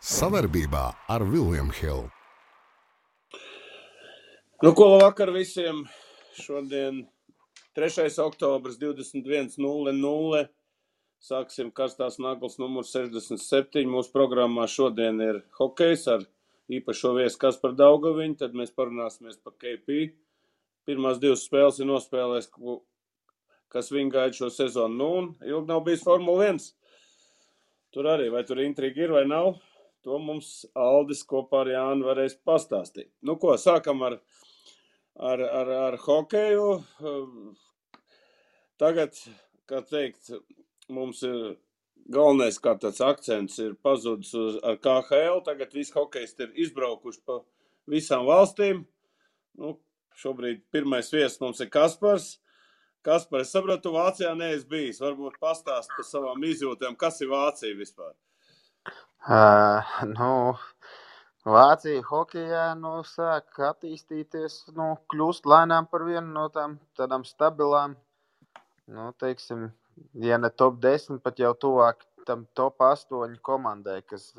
Savarbībā ar William Hill. Nu, ko labvakar visiem. Šodien 3. oktobrs 21:00. Sāksim karstās naglas numur 67. Mūsu programmā šodien ir hokejs ar īpašo viesu Kasparu Daugaviņu. Tad mēs parunāsimies par KP. Pirmās 2 spēles ir nospēlējis, kas viņu gaida šo sezonu. Nu, un ilgi nav bijis Formula 1. Tur arī, vai tur intriga ir vai nav, to mums Aldis kopā ar Jānu varēs pastāstīt. Nu ko, sākam ar hokeju. Tagad, kā teikt, mums ir galvenais kā tāds akcents ir pazudis ar KHL. Tagad visi hokejisti ir izbraukuši pa visām valstīm. Nu, šobrīd pirmais viesis mums ir Kaspars. Kaspar, es sapratu, tu Vācijā neesi bijis. Varbūt pastāst par savām izjūtēm, kas ir Vācija vispār? Vācija hokejā sāk attīstīties, kļūst lēnām par vienu no tādām stabilām, teiksim, ja ne top 10, pat jau tuvāk tam top 8 komandai, kas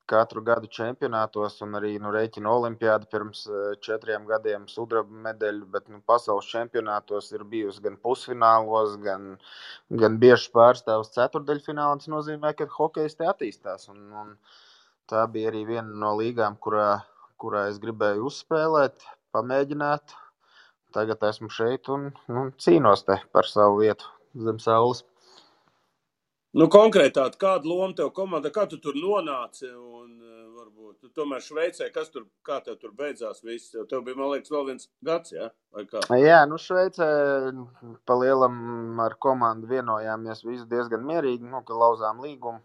katru gadu čempionātos un arī rēķina olimpiādu pirms 4 gadiem sudraba medaļu, bet pasaules čempionātos ir bijusi gan pusfinālos, gan bieži pārstāvs ceturdaļfinālā. Tas nozīmē, ka hokejs te attīstās. Un tā bija arī viena no līgām, kurā es gribēju uzspēlēt, pamēģināt. Tagad esmu šeit un cīnos te par savu vietu zem saules. Nu, konkrētāt, kāda loma tev komanda, kā tu tur nonāci un varbūt tu tomēr Šveicē, kā tev tur beidzās viss? Tev bija, man liekas, vēl viens gads, jā? Vai kā? Jā, Šveicē pa lielam ar komandu vienojāmies visi diezgan mierīgi, ka lauzām līgumu.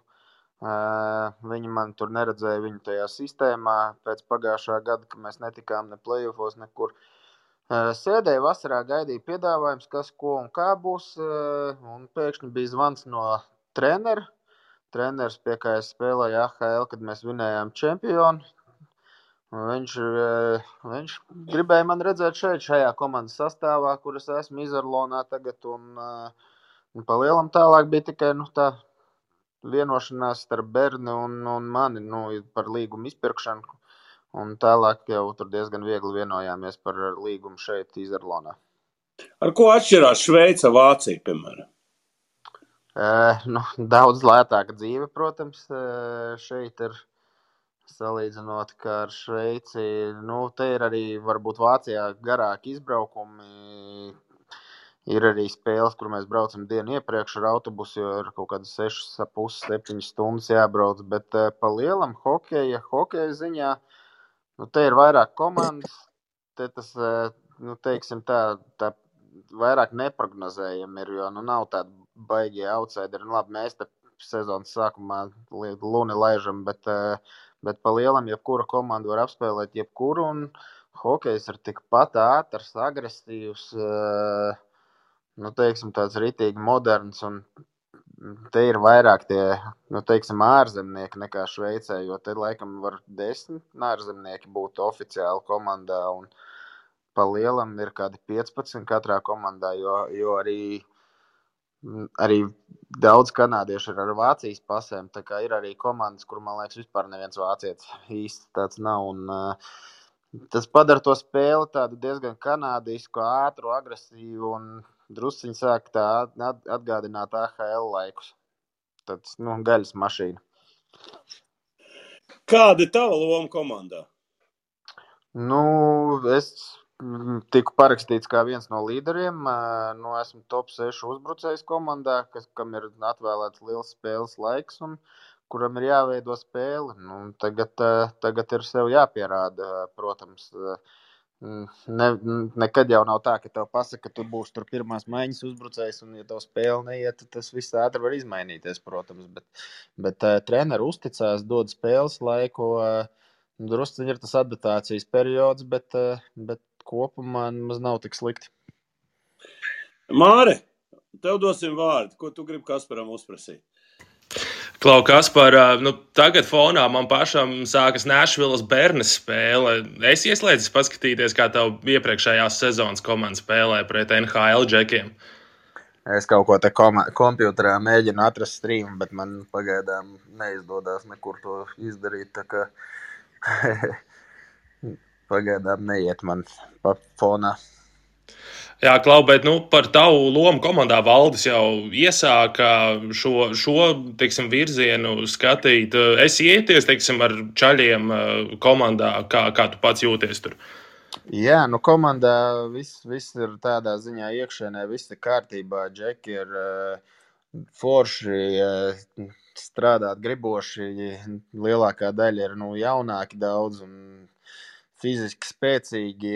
Viņi man tur neredzēja viņu tajā sistēmā pēc pagājušā gada, ka mēs netikām ne play-offos nekur. Sēdēju vasarā, gaidīju piedāvājums, kas, ko un kā būs, un pēkšņi bija zvans no treneru. Treneris, pie kā es spēlēju AHL, kad mēs vinējām čempionu. Viņš gribēja man redzēt šajā komandas sastāvā, kur es esmu Izarlonā tagad, un pa lielam tālāk bija tikai tā vienošanās starp Berni un mani par līgumu izpirkšanu, un tālāk jau tur diezgan viegli vienojāmies par līgumu šeit Izarlonā. Ar ko atšķirās Šveica, Vācija, piemēram? Daudz lētāka dzīve, protams, šeit ir salīdzinot, kā ar Šveici. Te ir arī varbūt Vācijā garāki izbraukumi. Ir arī spēles, kur mēs braucam dienu iepriekš ar autobusu, jo ir kaut kādas 6,5–7 stundas jābrauc. Bet pa lielam hokeja ziņā, te ir vairāk komandas. Te tas, teiksim tā vairāk neprognozējami ir, jo nav tāda baigie outsideri. Labi, mēs te sezonas sākumā luni laižam, bet pa lielam jebkura komanda var apspēlēt jebkuru, un hokejs ir tikpat ātrs, agresīvs, teiksim tāds ritīgi moderns, un te ir vairāk tie, teiksim, ārzemnieki nekā Šveicē, jo te laikam var 10 ārzemnieki būt oficiāli komandā, un pa lielam ir kādi 15 katrā komandā, jo arī daudz kanādiešu ir ar Vācijas pasēm, tā kā ir arī komandas, kur, man liekas, vispār neviens vācietis īsti tāds nav, un tas padara to spēli tādu diezgan kanādisku, ātru, agresīvu, un drusciņi sāk tā atgādināt AHL laikus. Tāds, gaļas mašīna. Kāda ir tava loma komandā? Es tiku parakstīts kā viens no līderiem. Esmu top 6 uzbrucējs komandā, kam ir atvēlēts liels spēles laiks un kuram ir jāveido spēle. Tagad ir sev jāpierāda, protams. Nekad jau nav tā, ka tev pasaka, ka tu būsi tur pirmās maiņas uzbrucējs, un ja tev spēle neiet, tad tas viss ātri var izmainīties, protams. Bet treneri uzticās, dod spēles laiku. Drusciņi ir tas adaptācijas periods, bet kopumā maz nav tik slikti. Māre, tev dosim vārdu. Ko tu gribi Kasparam uzprasīt? Klau, Kaspar, tagad fonā man pašam sākas Nashvilles Bernes spēle. Es ieslēdzis paskatīties, kā tev iepriekšējās sezonas komanda spēlē pret NHL džekiem. Es kaut ko te kompjuterā mēģinu atrast streamu, bet man pagaidām neizdodas nekur to izdarīt, tā kā pagaidām neiet man pa fonā. Jā, Klau, bet par tavu lomu komandā Valdis jau iesāka šo teiksim, virzienu skatīt. Es ieties, teiksim, ar čaļiem komandā, kā tu pats jūties tur? Jā, komandā viss ir tādā ziņā iekšēnē, viss ir kārtībā. Džeki ir forši, strādāt griboši, lielākā daļa ir jaunāki daudz un fiziski spēcīgi.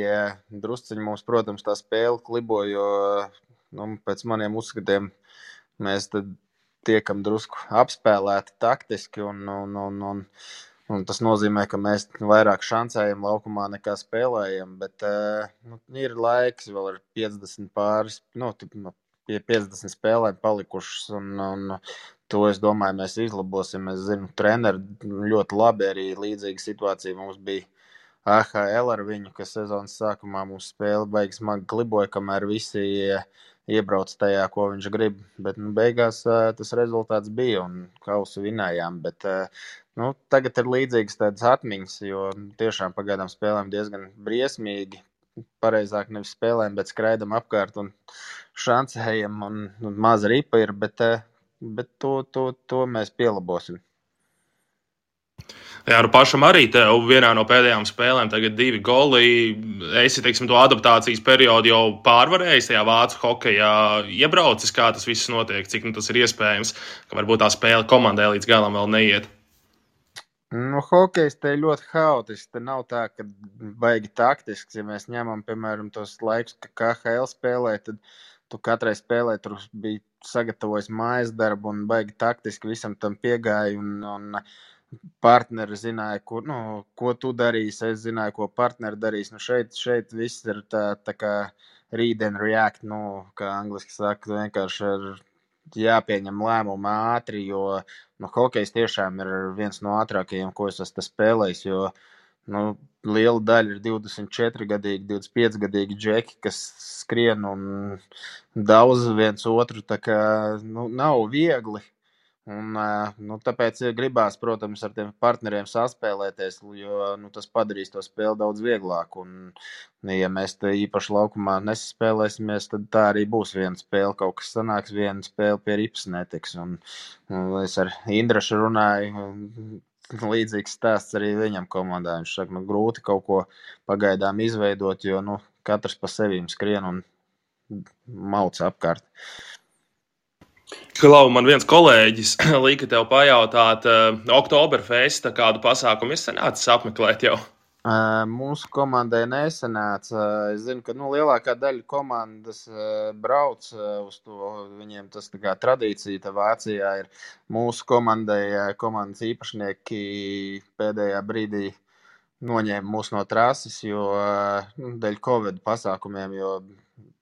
Drusciņi mums, protams, tā spēle klibo, jo pēc maniem uzskatiem mēs tad tiekam drusku apspēlēti taktiski un tas nozīmē, ka mēs vairāk šancējam laukumā nekā spēlējam, bet ir laiks, vēl ir 50 pāris, pie 50 spēlēm palikušas, un to, es domāju, mēs izlabosim. Es zinu, treneri ļoti labi, arī līdzīga situācija mums bija AHL ar viņu, kas sezonas sākumā mums spēle baigi smagi kliboja, kamēr visi iebrauc tajā, ko viņš grib, bet beigās tas rezultāts bija un kausu vinējām, bet tagad ir līdzīgas tādas atmiņas, jo tiešām pagaidām spēlēm diezgan briesmīgi, pareizāk nevis spēlēm, bet skraidam apkārt un šancējam un maza ripa ir, bet to mēs pielabosim. Jā, pašam arī tev vienā no pēdējām spēlēm tagad 2 goli. Esi, teiksim, to adaptācijas periodu jau pārvarējis tajā vācu hokejā, iebraucis, kā tas viss notiek, cik tas ir iespējams, ka varbūt tā spēle komandai līdz galam vēl neiet. Hokejs te ir ļoti haotisks. Te nav tā, ka baigi taktisks. Ja mēs ņemam, piemēram, tos laikus, ka KHL spēlē, tad tu katrai spēlē tur bija sagatavojis mājas darbu un baigi taktiski visam tam piegāja un partneri zināja, ko tu darīsi, es zināju, ko partneri darīs. Šeit viss ir tā kā read and react, kā angliski saka, vienkārši ir jāpieņem lēmumu ātri, jo hokejs tiešām ir viens no ātrākajiem, ko es esmu spēlējis, jo liela daļa ir 24-gadīgi, 25-gadīgi džeki, kas skrien un daudz viens otru, tā kā nav viegli. Un, tāpēc gribās, protams, ar tiem partneriem saspēlēties, jo tas padarīs to spēli daudz vieglāku. Un, ja mēs te īpaši laukumā nesaspēlēsimies, tad tā arī būs viena spēle. Kaut kas sanāks, viena spēle pie ripas netiks. Un es ar Indrašu runāju, līdzīgs stāsts arī viņam komandā. Viņš saka, grūti kaut ko pagaidām izveidot, jo katrs pa sevīm skrien un mauc apkārt. Klau, man viens kolēģis lika tev pajautāt, Oktoberfesta kādu pasākumu sanācis apmeklēt jau? Mūsu komandai nesanāca. Es zinu, ka lielākā daļa komandas brauc uz to. Viņiem tas tā kā tradīcija tā Vācijā ir. Mūsu komandas īpašnieki pēdējā brīdī noņēma mūs no trases, jo dēļ Covid pasākumiem, jo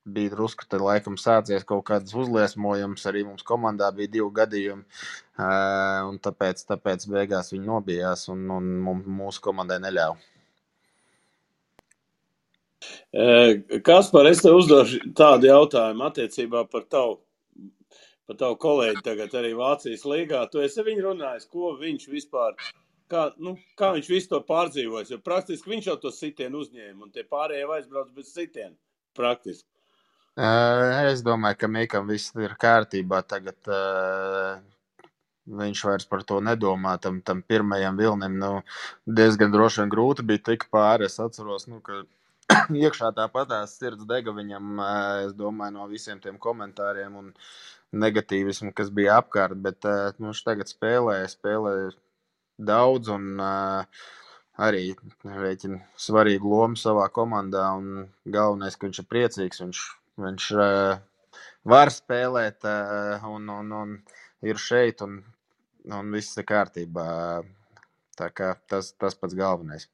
bija drusku, tad laikam sācies kaut kāds uzliesmojums, arī mums komandā bija 2 gadījumi, un tāpēc beigās viņi nobijās un mūsu komandai neļāva. Kaspar, es tev uzdošu tādu jautājumu attiecībā par tavu kolēģi tagad arī Vācijas līgā. Tu esi viņu runājis, ko viņš vispār, kā viņš visu to pārdzīvojas, jo praktiski viņš jau to sitienu uzņēma, un tie pārējie aizbrauc bez sitienu, praktiski. Es domāju, ka Mikam viss ir kārtībā. Tagad viņš vairs par to nedomā. Tam pirmajam vilnim diezgan droši vien grūti bija tik pāri. Es atceros, ka iekšā tāpatās sirds dega viņam, es domāju, no visiem tiem komentāriem un negatīvismu, kas bija apkārt. Bet viņš tagad spēlē daudz un arī rēķina svarīgu lomu savā komandā. Un galvenais, ka viņš ir priecīgs, viņš var spēlēt un ir šeit un viss ir kārtībā. Tā kā tas pats galvenais.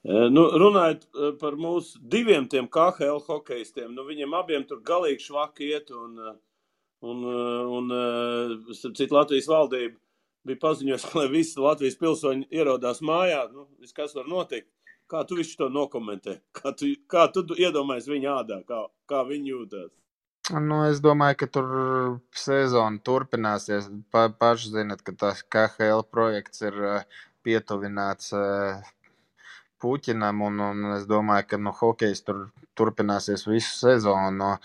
Runājot par mūsu 2 tiem KHL hokejistiem, viņiem abiem tur galīgi švaki iet un citu Latvijas valdība bija paziņojusi, lai visi Latvijas pilsoņi ierodās mājā. Viss, kas var notikt. Kā tu visu to nokomentē? Kā tu iedomājies viņa ādā? Kā viņi jūtas? Nu, es domāju, ka tur sezona turpināsies. Paši zinat, ka tas KHL projekts ir pietuvināts Puķinam, un es domāju, ka hokejs tur turpināsies visu sezonu.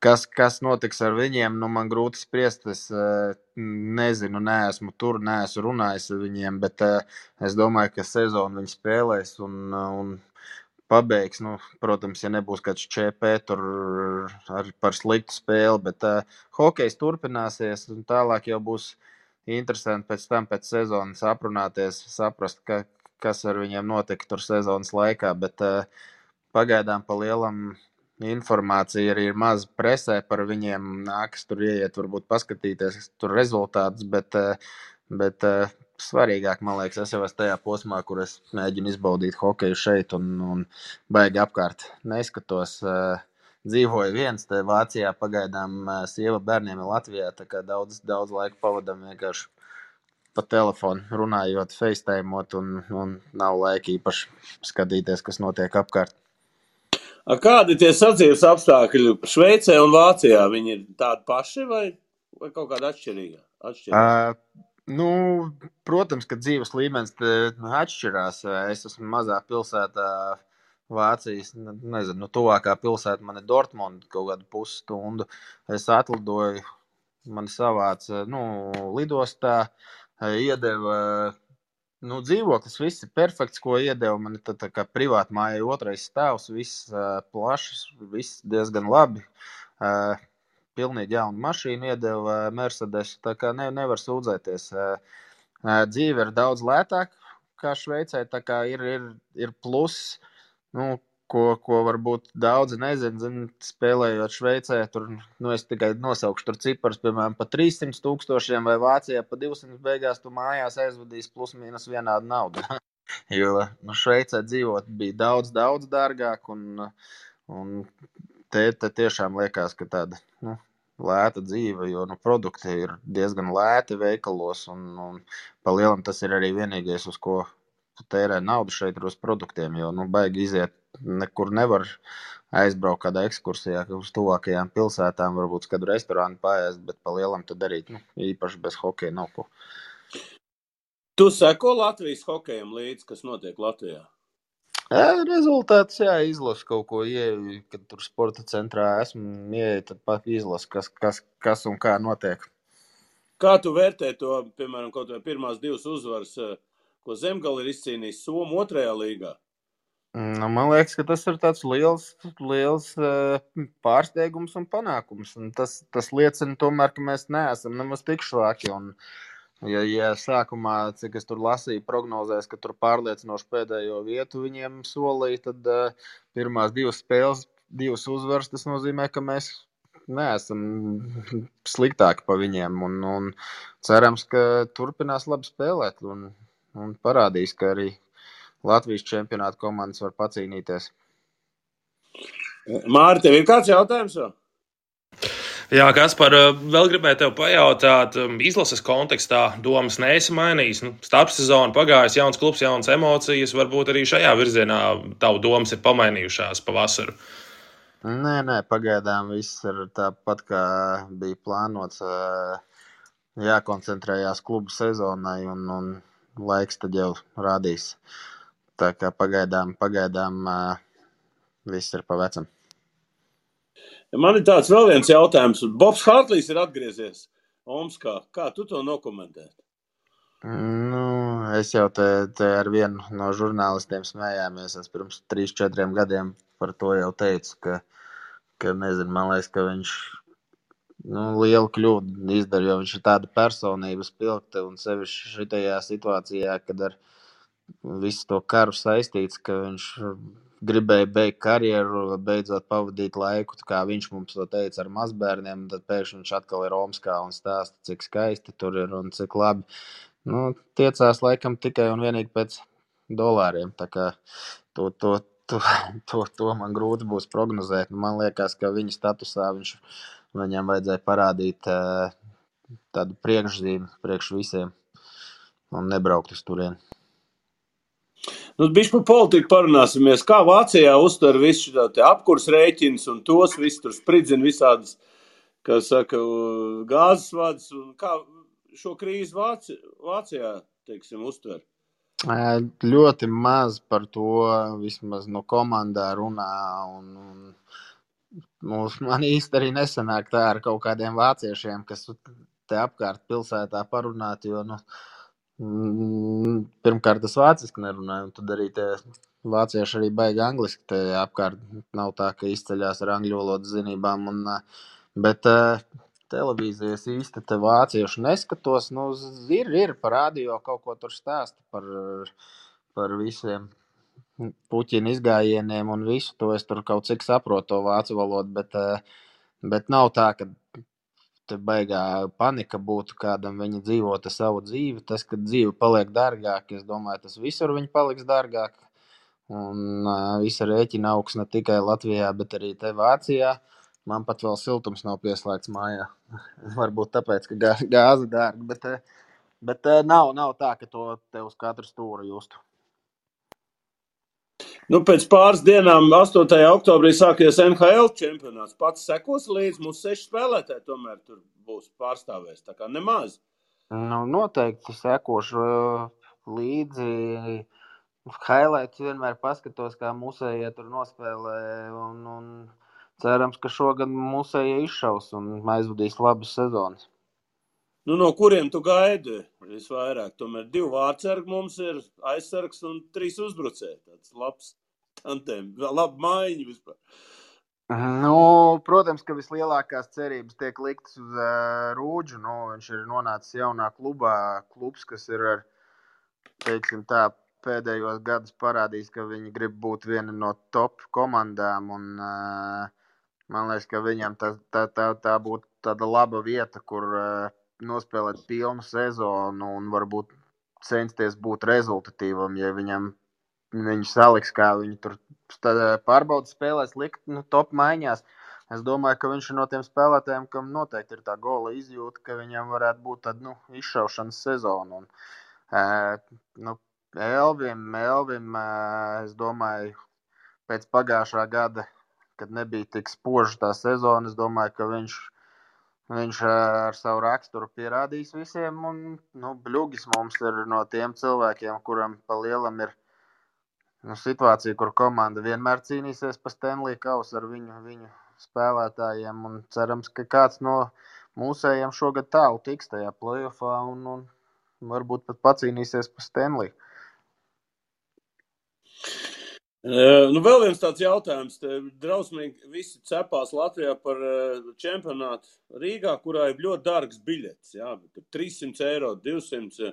Kas notiks ar viņiem, man grūti spriest. Es nezinu, neesmu tur, neesmu runājis ar viņiem, bet es domāju, ka sezonu viņi spēlēs un pabeigs. Protams, ja nebūs kāds ČP tur par sliktu spēli, bet hokejs turpināsies, un tālāk jau būs interesanti pēc tam, pēc sezonas aprunāties, saprast, kas ar viņiem notika tur sezonas laikā, bet pagaidām pa lielam informācija arī ir maz presē par viņiem, nākas tur ieiet, varbūt paskatīties tur rezultātus, bet svarīgāk, man liekas, es jau esmu tajā posmā, kur es mēģinu izbaudīt hokeju šeit un baigi apkārt neskatos. Dzīvoju viens, te Vācijā pagaidām sieva bērniem ir Latvijā, tā kā daudz laika pavadam vienkārši pa telefonu runājot, facetimeot un nav laika īpaši skatīties, kas notiek apkārt. Kādi tie sadzīves apstākļi Šveicē un Vācijā? Viņi ir tādi paši vai kaut kādi atšķirīgi? Protams, ka dzīves līmenis atšķirās. Es esmu mazā pilsētā Vācijas, nezinu, tuvākā pilsēta man ir Dortmunda, kaut kādu pusstundu. Es atlidoju, mani savāca lidostā, iedeva dzīvoklis, viss ir perfekts, ko iedeva. Man ir tā kā privāta māja, 2. stāvs, viss plašs, viss diezgan labi. Pilnīgi jaunu mašīnu iedeva Mercedes, tā kā nevar sūdzēties. Dzīve ir daudz lētāka kā Šveicē, tā kā ir pluss, ko varbūt daudzi nezina, spēlējot Šveicē, tur, es tikai nosaukšu tur ciparus, piemēram, pa 300,000 vai Vācijā pa 200 beigās tu mājās aizvadīs plus mīnus vienādu naudu. Jo Šveicē dzīvot bija daudz dārgāk un te tiešām liekas, ka tāda lēta dzīve, jo produkti ir diezgan lēti veikalos un pa lielam tas ir arī vienīgais, uz ko tērē naudu šeit ir uz produktiem, jo baigi iziet nekur nevar aizbraukt kādā ekskursijā uz tuvākajām pilsētām, varbūt kādu restorānu paēst, bet pa lielam tad darīt, īpaši bez hokeja nav ko. Tu seko Latvijas hokejam līdzi, kas notiek Latvijā? Rezultāts, izlasu kaut ko ieeju, kad tur sporta centrā esmu ieeju, tad pat izlasu, kas un kā notiek. Kā tu vērtē to, piemēram, kaut vai pirmās 2 uzvaras, ko Zemgale ir izcīnījis Somu 2. līgā? Man liekas, ka tas ir tāds liels pārsteigums un panākums. Un tas liecina tomēr, ka mēs neesam nemaz tik švaki. Un, ja sākumā, cik es tur lasīju, prognozēs, ka tur pārliecinoši pēdējo vietu viņiem solīja, tad pirmās 2 spēles, 2 uzvaras, tas nozīmē, ka mēs neesam sliktāki pa viņiem. Un cerams, ka turpinās labi spēlēt un parādīs, ka arī Latvijas čempionāta komandas var pacīnīties. Māri, tev ir kāds jautājums vēl? Jā, Kaspar, vēl gribēju tev pajautāt, izlases kontekstā domas neesi mainījis. Starpsezona pagājis, jauns klubs, jaunas emocijas, varbūt arī šajā virzienā tavu domas ir pamainījušās pavasaru. Nē, pagaidām viss ir tāpat, kā bija plānots. Jākoncentrējās klubu sezonai un laiks tad jau rādīs. Tā kā pagaidām viss ir pa vecam. Man ir tāds vēl viens jautājums. Bobs Hartlīs ir atgriezies Omskā. Kā tu to nokomentēt? Es jau te ar vienu no žurnālistiem smējāmies. Es pirms 3-4 gadiem par to jau teicu, ka nezinu, man liekas, ka viņš lielu kļūdu izdara, jo viņš ir tāda personība spilgta un sevišķi šitajā situācijā, kad ar visu to karu saistīts, ka viņš gribēja beigt karjeru, beidzot pavadīt laiku, kā viņš mums to teica ar mazbērniem, tad pēkšņi viņš atkal ir Omskā un stāsta, cik skaisti tur ir un cik labi. Tiecās laikam tikai un vienīgi pēc dolāriem, tā kā to man grūti būs prognozēt. Man liekas, ka viņa statusā viņam vajadzēja parādīt tādu priekšzīmi priekš visiem un nebraukt uz turieni. Bišķi par politiku parunāsimies. Kā Vācijā uztver visu šo apkurs rēķins un tos visu tur spridzina visādas kā saka, gāzes vads, un kā šo krīzi Vācijā, teiksim, uztver? Ļoti maz par to vismaz no komandā runā, un man īsti arī nesanāk tā ar kaut kādiem vāciešiem, kas te apkārt pilsētā parunāt, jo, pirmkārt, es vāciski nerunāju, un tad arī tie vācieši arī baigi angliski te apkārt nav tā, ka izceļās ar angļu valodas zinībām, bet televīzijas īsti te vāciešu neskatos, ir par radio kaut ko tur stāsta par visiem Puķina izgājieniem un visu to. Es tur kaut cik saprotu to vācu valodu, bet nav tā, ka te baigā panika būtu kādam, viņi dzīvotu savu dzīvi. Tas, ka dzīve paliek dārgāk, es domāju, tas visur viņi paliks dārgāk. Un visa rēķina augs ne tikai Latvijā, bet arī te Vācijā. Man pat vēl siltums nav pieslēgts mājā. Varbūt tāpēc, ka gāze dārga, bet nav tā, ka to te uz katru stūru justu. Pēc pāris dienām, 8. oktobrī, sāksies NHL čempionāts. Pats sekos līdz, mums 6 spēlētāji tomēr tur būs pārstāvēs, tā kā nemaz. Noteikti sekošu līdzi. Highlights vienmēr paskatos, kā mūsējie tur nospēlē, un cerams, ka šogad mūsējie izšaus un aizvadīs labas sezonas. No kuriem tu gaidi visvairāk? Tomēr 2 vārdsargi mums ir, aizsargs un 3 uzbrucēji. Tāds labs tantēm, laba maiņa vispār. Protams, ka vislielākās cerības tiek liktas uz Rūdžu. Viņš ir nonācis jaunā klubā. Klubs, kas ir ar, teiksim tā, pēdējos gadus parādījis, ka viņi grib būt viena no top komandām. Un man liekas, ka viņam tā būtu tāda laba vieta, kur nospēlēt pilnu sezonu un varbūt censties būt rezultatīvam, ja viņi saliks, kā viņi tur pārbaudas spēlēs likt top maiņās. Es domāju, ka viņš ir no tiem spēlētājiem, kam noteikti ir tā gola izjūta, ka viņam varētu būt tāda izšaušanas sezona. Un, Elvim, es domāju, pēc pagājušā gada, kad nebija tik spoža tā sezona, es domāju, ka viņš ar savu raksturu pierādīs visiem. Un, Bļugis mums ir no tiem cilvēkiem, kuram pa lielam ir situācija, kur komanda vienmēr cīnīsies pa Stanley kausu ar viņu spēlētājiem. Un cerams, ka kāds no mūsējiem šogad tālu tiks tajā playoffā un varbūt pat pacīnīsies pa Stanley. Vēl viens tāds jautājums. Drausmīgi visi cepās Latvijā par čempionātu Rīgā, kurā ir ļoti dārgs biļets. Jā, 300 eiro, 200.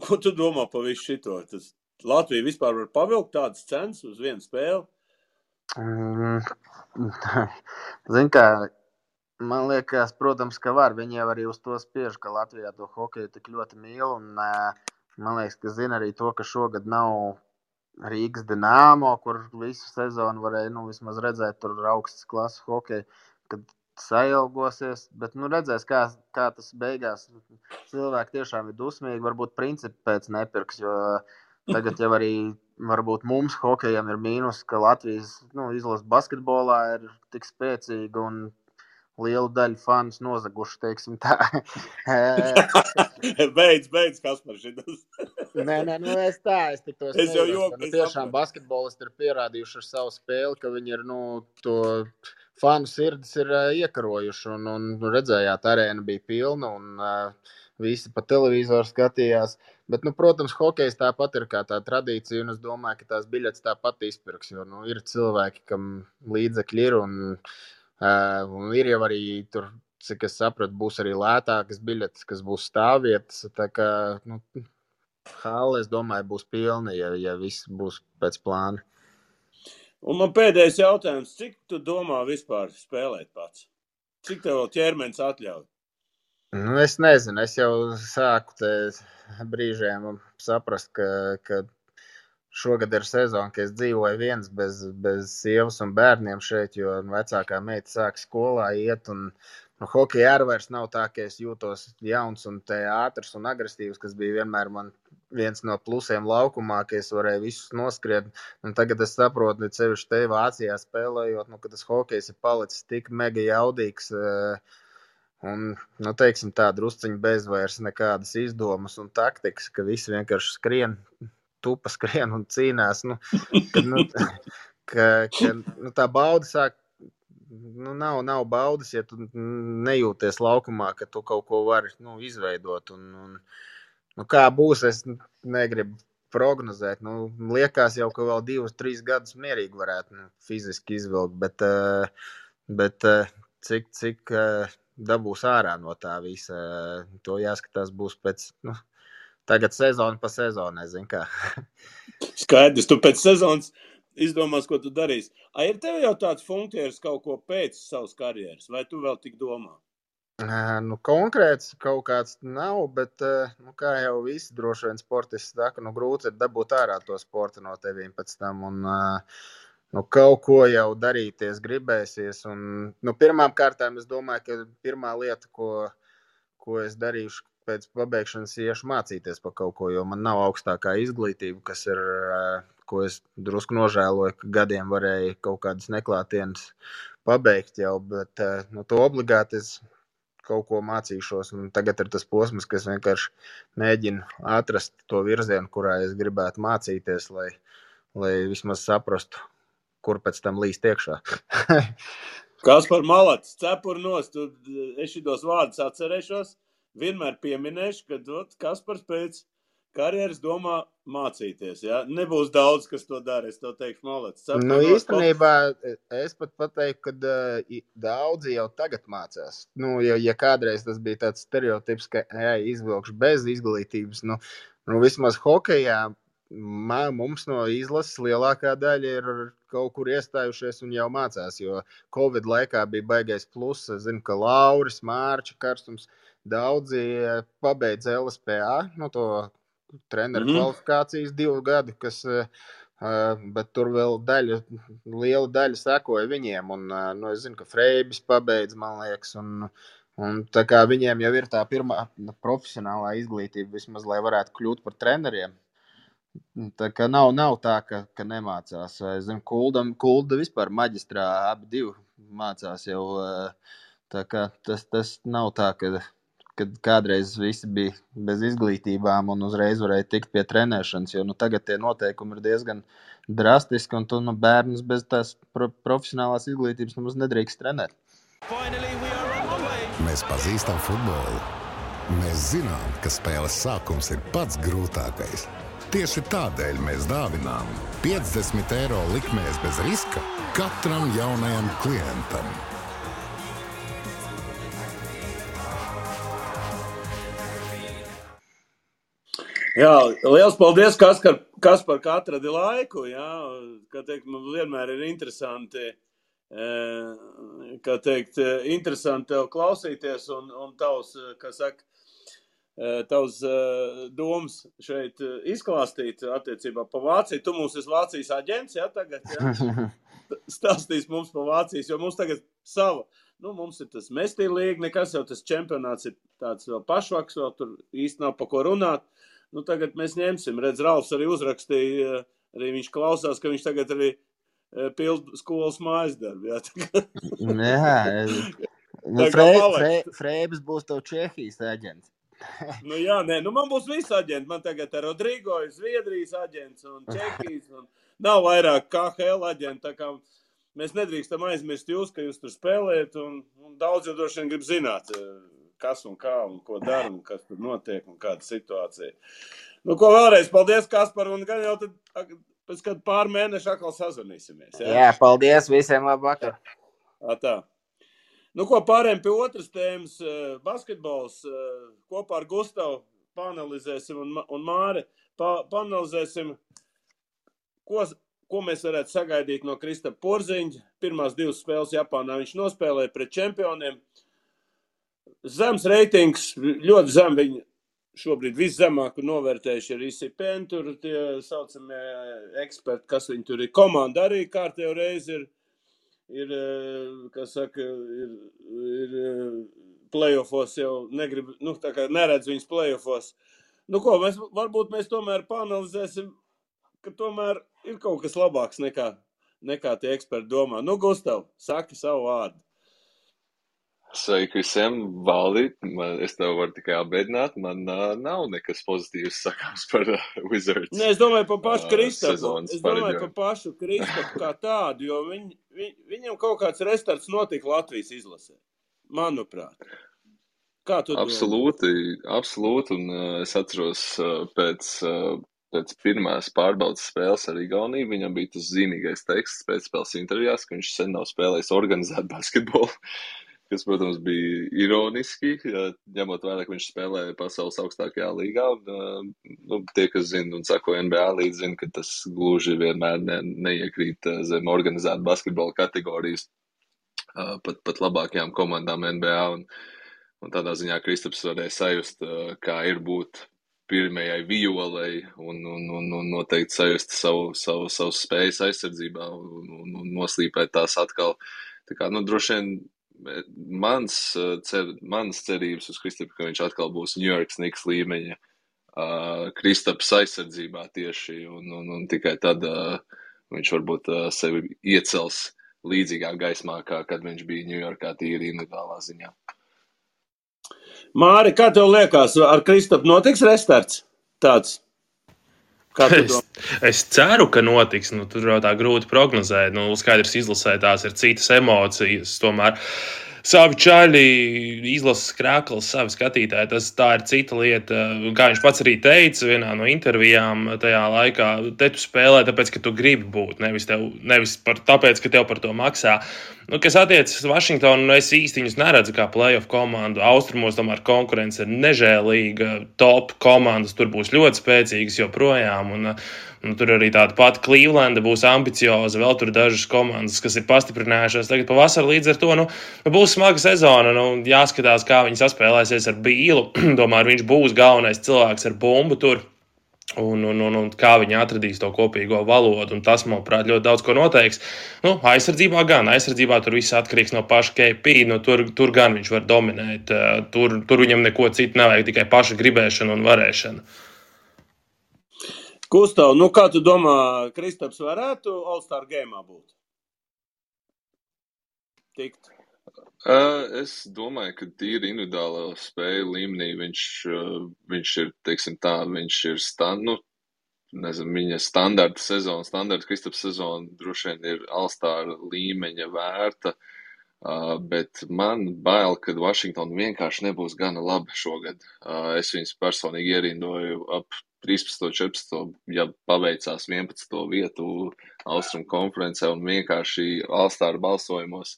Ko tu domā par visu šito? Tas Latvija vispār var pavilkt tādas cenas uz vienu spēli? Zin kā, man liekas, protams, ka var. Viņi jau arī uz to spiež, ka Latvijā to hokeju tik ļoti mīl. Un man liekas, ka zina arī to, ka šogad nav Rīgas Dinamo, kur visu sezonu varēja vismaz redzēt tur augstas klases hokeju, kad sailgosies, bet redzēs, kā tas beigās. Cilvēki tiešām ir dusmīgi, varbūt principi pēc nepirks, jo tagad jau arī varbūt mums hokejam ir mīnus, ka Latvijas izlase basketbolā ir tik spēcīga un lielu daļu fanus nozaguši, teiksim tā. Beidz, Kaspar, šitas. Nē, es tik tos nejoku. Tiešām basketbolisti ir pierādījuši ar savu spēli, ka viņi ir, to fanu sirdis ir iekarojuši, un redzējāt, arēna bija pilna, un visi pa televizoru skatījās. Bet, protams, hokejs tāpat ir kā tā tradīcija, un es domāju, ka tās biļetes tāpat izpirks, jo, ir cilvēki, kam līdzekļi ir, un ir jau arī tur, cik es sapratu, būs arī lētākas biļetes, kas būs stāvvietas, tā kā, hale, es domāju, būs pilna, ja viss būs pēc plāna. Un man pēdējais jautājums, cik tu domā vispār spēlēt pats? Cik tev ķermenis atļauj? Es nezinu, es jau sāku te brīžiem saprast, ka šogad ir sezona, ka es dzīvoju viens bez sievas un bērniem šeit, jo vecākā meita sāk skolā iet, un hokeja arī vairs nav tā, ka es jūtos jauns un ātrs un agresīvs, kas bija vienmēr man viens no plusiem laukumā, ka es varēju visus noskriet. Un tagad es saprotu, ka sevišķi te Vācijā spēlējot, ka tas hokejs ir palicis tik mega jaudīgs. Un, teiksim tā, drusciņi bez vairs nekādas izdomas un taktikas, ka visi vienkārši skrien, tupa skrien un cīnās. Tā bauda sāk, nav baudas, ja tu nejūties laukumā, ka tu kaut ko vari izveidot. Kā būs, es negribu prognozēt. Liekas jau, ka vēl 2-3 gadus mierīgi varētu fiziski izvilkt, bet cik dabūs ārā no tā visa, to jāskatās būs pēc, tagad sezona pa sezonai, zin kā. Skaidrs, tu pēc sezonas izdomās, ko tu darīsi. Ir tev jau tāds funkcijas kaut ko pēc savas karjeras, vai tu vēl tik domā? Konkrēts kaut kāds nav, bet, kā jau visi droši vien sportisti saka, grūti ir dabūt ārā to sportu no tevīm pēc tam, un kaut ko jau darīties gribēsies, un, pirmām kārtām es domāju, ka pirmā lieta, ko es darīšu pēc pabeigšanas, iešu mācīties par kaut ko, jo man nav augstākā izglītība, kas ir, ko es drusku nožēloju, ka gadiem varēju kaut kādas neklātienes pabeigt jau, bet, to obligāti es kaut ko mācīšos, un tagad ir tas posms, ka es vienkārši mēģinu atrast to virzienu, kurā es gribētu mācīties, lai vismaz saprastu, kur pēc tam līst iekšā. Kaspar Malats, cepur nost, es šitos vārdus atcerēšos, vienmēr pieminēšu, ka Kaspars pēc karjeras domā mācīties, ja? Nebūs daudz, kas to dara, es to teikšu, Malats. Īstenībā es pat pateiktu, ka daudzi jau tagad mācās. Ja kādreiz tas bija tāds stereotips, ka izvilkšu bez izglītības, vismaz hokejā mums no izlases lielākā daļa ir kaut kur iestājušies un jau mācās, jo Covid laikā bija baigais pluss. Es zinu, ka Lauris, Mārča Karstums, daudzi pabeidz LSPA, treneru kvalifikācijas 2 gadu, bet tur vēl liela daļa sekoja viņiem, un es zinu, ka Freibis pabeidz, man liekas, un tā kā viņiem jau ir tā pirmā profesionālā izglītība, vismaz, lai varētu kļūt par treneriem. Tā kā nav tā, ka nemācās. Es zinu, Kulda vispār maģistrā abi 2 mācās jau, tā kā tas nav tā, kad kādreiz visi bija bez izglītībām un uzreiz varēja tikt pie trenēšanas, jo tagad tie noteikumi ir diezgan drastiski, un tu bērnus bez tās profesionālās izglītības nemaz nedrīkst trenēt. Mēs pazīstam futbolu. Mēs zinām, ka spēles sākums ir pats grūtākais. Tieši tādēļ mēs dāvinām 50 eiro likmēs bez riska katram jaunajam klientam. Jā, liels paldies, Kaspar, ka atradi laiku, jā, kā teikt, man vienmēr ir interesanti, interesanti tev klausīties un tavs, tavs domas šeit izklāstīt attiecībā pa Vāciju. Tu mums esi Vācijas aģents, jā, tagad, jā, stāstīs mums pa Vācijas, jo mums tagad sava, mums ir tas mestīlīgi, nekas jau tas čempionāts ir tāds vēl pašvaks, vēl tur īsti nav pa ko runāt. Tagad mēs ņemsim. Redz, Ralfs arī uzrakstīja, arī viņš klausās, ka viņš tagad arī pild skolas mājas darbu. Freibis būs tev Čehijas aģents. Man būs visi aģenti. Man tagad ir Rodrigo, Zviedrijas aģents un Čehijas. Un nav vairāk KHL aģenti. Tā kā mēs nedrīkstam aizmirst jūs, ka jūs tur spēlējat. Un daudz jau droši vien grib zināt, kas un kā un ko dara un kas tur notiek un kāda situācija. Ko vēlreiz, paldies, Kaspar, un gan jau tad pēc kādu pār mēnešu atkal sazvanīsimies. Jā, paldies visiem, labvakar. Tā. Pārējiem pie otras tēmas, basketbols, kopā ar Gustavu paanalizēsim un Māri paanalizēsim, ko mēs varētu sagaidīt no Kristapa Porziņa. Pirmās 2 spēles Japānā viņš nospēlēja pret čempioniem. Zems reitings, ļoti zem viņi šobrīd viszemāku novērtējuši ir ICPN, tur tie saucamie eksperti, kas viņi tur ir. Komanda arī kārtējo reizi ir playoffos jau negrib, tā kā neredz viņas playoffos. Nu ko, varbūt mēs tomēr pāanalizēsim, ka tomēr ir kaut kas labāks nekā tie eksperti domā. Nu, Gustav, saki savu vārdu. Sveiki visiem, Valdi. Es tev varu tikai apbēdināt. Man nav nekas pozitīvs sakāms par Wizards. Ne, es domāju par pašu Kristapu. sezonas Es domāju pareģojumu. par pašu Kristapu kā tādu, jo viņam kaut kāds restarts notika Latvijas izlasē. Manuprāt. Kā tu domā? Absolūti. Un es atceros pēc pirmās pārbaudas spēles ar Igauniju. Viņam bija tas zīmīgais teksts pēc spēles intervijās, ka viņš sen nav spēlējis organizēt basketbolu. Kas, protams, bija ironiski, ņemot vērā, ka viņš spēlē pasaules augstākajā līgā. Un, tie, kas zina un sako NBA līdzi, zina, ka tas gluži vienmēr neiekrīt zem organizēta basketbola kategorijas pat labākajām komandām NBA. Un tādā ziņā Kristaps varēja sajust, kā ir būt pirmajai violei un noteikti sajust savu spējas aizsardzībā un noslīpēt tās atkal. Tā kā, droši vien mans cerības uz Kristapu, ka viņš atkal būs New York Knicks līmeņa Kristaps aizsardzībā tieši, un tikai tad viņš varbūt sevi iecels līdzīgā gaismā, kad viņš bija Ņujorkā tīri individuālā ziņā. Māri, kā tev liekas, ar Kristapu notiks restarts tāds? Es ceru, ka notiks. Tur jau tā grūti prognozēt. Skaidrs, izlasē tās ir citas emocijas. Tomēr savi čaļi, izlases krāklis, savi skatītāji, tā ir cita lieta. Kā viņš pats arī teica vienā no intervijām tajā laikā, te tu spēlē tāpēc, ka tu gribi būt, nevis tāpēc, ka tev par to maksā. Kas attiecas uz Vašingtonu, es īsti viņus neredzu kā playoff komandu. Austrumos tomēr konkurence ir nežēlīga, top komandas tur būs ļoti spēcīgas joprojām, un tur arī tāda pati Clevelanda būs ambicioza, vēl tur dažas komandas, kas ir pastiprinājušās tagad pavasarī, līdz ar to, būs smaga sezona, jāskatās, kā viņi saspēlēsies ar Bīlu, tomēr viņš būs galvenais cilvēks ar bumbu tur. Un kā viņi atradīs to kopīgo valodu, un tas, manuprāt, ļoti daudz ko noteiks. Aizsardzībā tur viss atkarīgs no paša KP, tur gan viņš var dominēt, tur viņam neko citu nevajag, tikai paša gribēšana un varēšana. Gustav, kā tu domā, Kristaps varētu All-Star game'ā būt? Tikt? Es domāju, ka tīri individuālā spēju līmenī viņš ir, teiksim tā, viņš ir viņa standarta Kristaps sezona droši vien ir All-Star līmeņa vērta, bet man bail, ka Washington vienkārši nebūs gana labi šogad. Es viņus personīgi ierindoju ap 13. 14. ja paveicās 11. vietu Austrum konferencē un vienkārši All-Star balsojumos.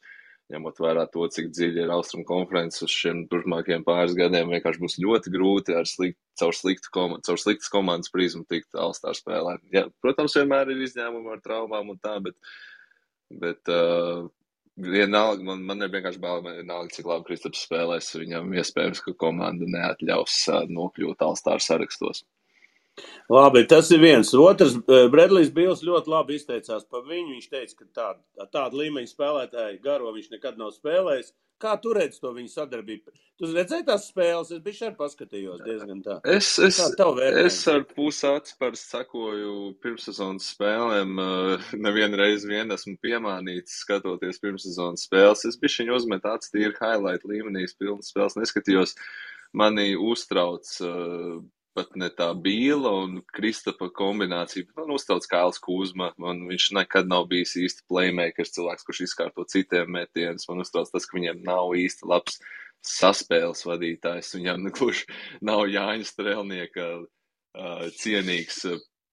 Ņemot vērā to, cik dziļi ir Austrum konferences uz šiem turpmākajiem pāris gadiem, vienkārši būs ļoti grūti caur sliktas komandas prizmu tikt All-Star spēlē. Ja, protams, vienmēr ir izņēmumi ar traumām un tā, bet vienalga, man ir vienkārši bail, vienalga, cik labi Kristaps spēlēs, viņam iespējams, ka komanda neatļaus nokļūt All-Star sarakstos. Labi, tas ir viens. Otrs, Bredlijs Bīls ļoti labi izteicās par viņu. Viņš teica, ka tādu līmeņu spēlētāju garo viņš nekad nav spēlējis. Kā tu redzi to viņu sadarbību? Tu redzēji tās spēles? Es bišķi arī paskatījos diezgan tā. Es ar pusāci parasti sakoju pirmssezonas spēlēm. Nevienreiz esmu piemānīts skatoties pirmssezonas spēles. Es bišķiņu uzmetu acis tīri highlight līmenī, pilnas spēles neskatījos. Mani uztrauc pat ne tā Bīla un Kristapa kombinācija, bet man uztrauc Kails Kuzma. Viņš nekad nav bijis īsti playmakers, cilvēks, kurš izkārto citiem metienus. Man uztrauc tas, ka viņiem nav īsti labs saspēles vadītājs. Viņam gluži nav Jāņa Strelnieka cienīgs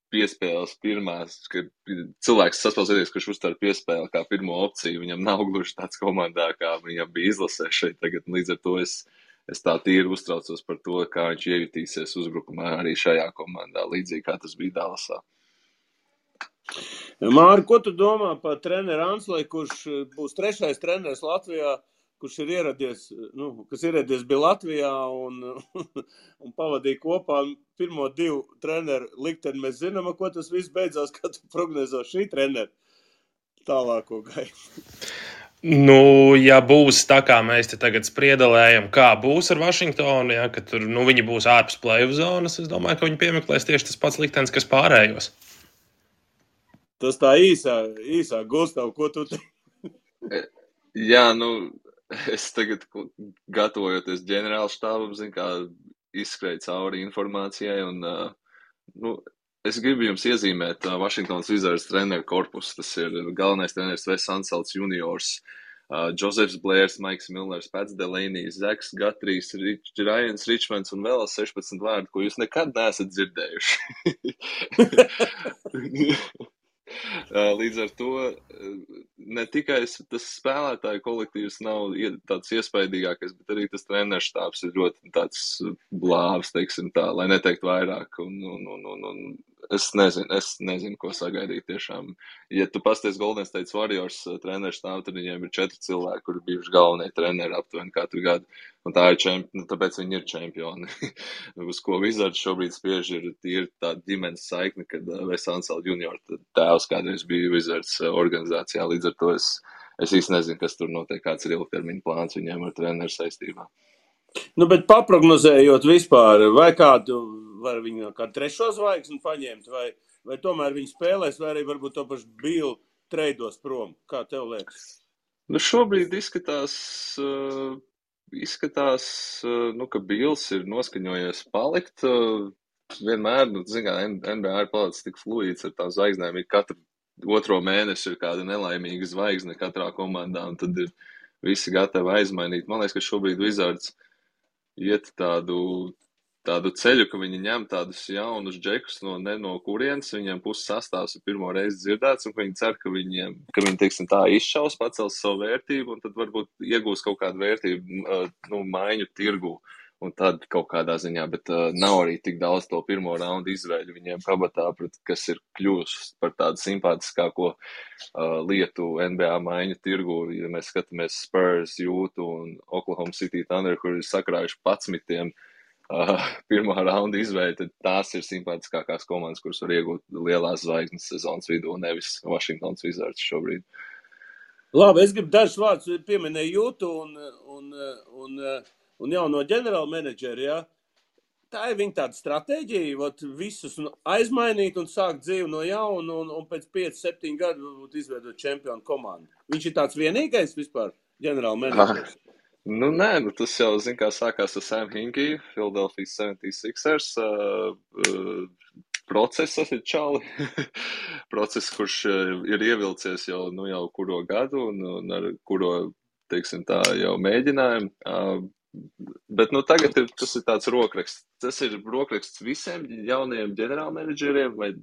piespēles pirmās, ka cilvēks saspēles vadītājs, kurš uztver piespēli kā pirmo opciju. Viņam nav gluži tāds komandā, kā viņam bija izlasē šeit tagad. Līdz ar to es tā tīri uztraucos par to, kā viņš iejutīsies uzbrukumā arī šajā komandā, līdzīgi kā tas bija Dallasā. Māri, ko tu domā par treneru Ansley, kurš būs 3. treneris Latvijā, kurš ir ieradies bija Latvijā un pavadīja kopā pirmo 2 treneru likteni? Mēs zinām, ko tas viss beidzās, kā tu prognozē šī trenera tālāko gaitu. Nu, ja būs tā, kā mēs te tagad spriedelējam, kā būs ar Vašingtonu, ja, ka tur viņi būs ārpus play-off zonas, es domāju, ka viņi piemeklēs tieši tas pats liktenis, kas pārējos. Tas tā īsā Gustav, ko tu te? Jā, es tagad gatavojoties ģenerāla štābam, kā izskrēju cauri informācijai, un es gribu jums iezīmēt Washingtonas Wizards treneru korpusu. Tas ir galvenais treneris Wes Unseld juniors, Josefs Blērs, Maiks Millers, Pats Delanijs, Zeks Gatrijs, Ryans Richmonds un vēl 16 vārdu, ko jūs nekad neesat dzirdējuši. Līdz ar to ne tikai tas spēlētāju kolektīvs nav tāds iespaidīgākais, bet arī tas treneru štābs ir ļoti tāds blāvs, teiksim tā, lai neteikt vairāk. Un es nezinu, ko sagaidīt tiešām. Ja tu pasties Golden State Warriors treneru štābu, tad viņiem ir 4 cilvēki, kuri bijuši galvenie treneri aptuveni katru gadu. Un tā ir tāpēc viņi ir čempioni. Uz ko Wizards šobrīd spiež ir tīri tāda ģimenes saikne, kad Wes Unseld junior tēvs kādreiz bija Wizards organizācijā. Līdz ar to es īsti nezinu, kas tur notiek, kāds ir ilgtermiņa plāns viņiem ar treneru saistībā. Bet paprognozējot vispār, vai kādu var viņu kā trešo zvaigzni paņemt, vai tomēr viņi spēlēs, vai arī varbūt to pašu Billu treidos prom. Kā tev liekas? Šobrīd izskatās, ka Bills ir noskaņojies palikt. Vienmēr, NBA ir palicis tik fluīds ar tām zvaigznēm, ir katru otro mēnesi ir kāda nelaimīga zvaigzne katrā komandā, un tad ir visi gatavi aizmainīt. Man liekas, ka šobrīd Wizards iet tādu ceļu, ka viņi ņem tādus jaunus džekus no kurienes, viņiem puses sastāvs ir pirmo reizi dzirdēts, un viņi cer, ka viņi, teiksim tā, izšaus, pacels savu vērtību, un tad varbūt iegūs kaut kādu vērtību, maiņu tirgu, un tad kaut kādā ziņā, bet nav arī tik daudz to pirmo raundu izvēļu viņiem kabatā, kas ir kļūst par tādu simpātiskāko lietu NBA maiņu tirgu. Ja mēs skatāmies Spurs, Jūtu un Oklahoma City Thunder, kur ir sakrājuši 11 pirmā raunda izvēle, tad tās ir simpātiskākās komandas, kuras var iegūt lielās zvaigznes sezonas vidū, nevis Washingtonas Wizards šobrīd. Labi, es gribu dažus vārdus pieminēt Jūtu un jauno ģenerāla menedžeri, ja? Tā ir viņa tāda stratēģija, visus aizmainīt un sākt dzīvi no jauna un pēc 5-7 gadu izveidot čempionu komandu. Viņš ir tāds vienīgais vispār ģenerāla menedžers. Nē, tas jau, kā sākās ar Sam Hinkie, Philadelphia 76ers procesa čali. Process, kurš ir ievilcies jau kuro gadu un ar kuro, teiksim tā, jau mēģinājumu. Bet tagad tas ir tāds rokraksts. Tas ir rokraksts visiem jaunajiem ģenerālmenedžeriem, vai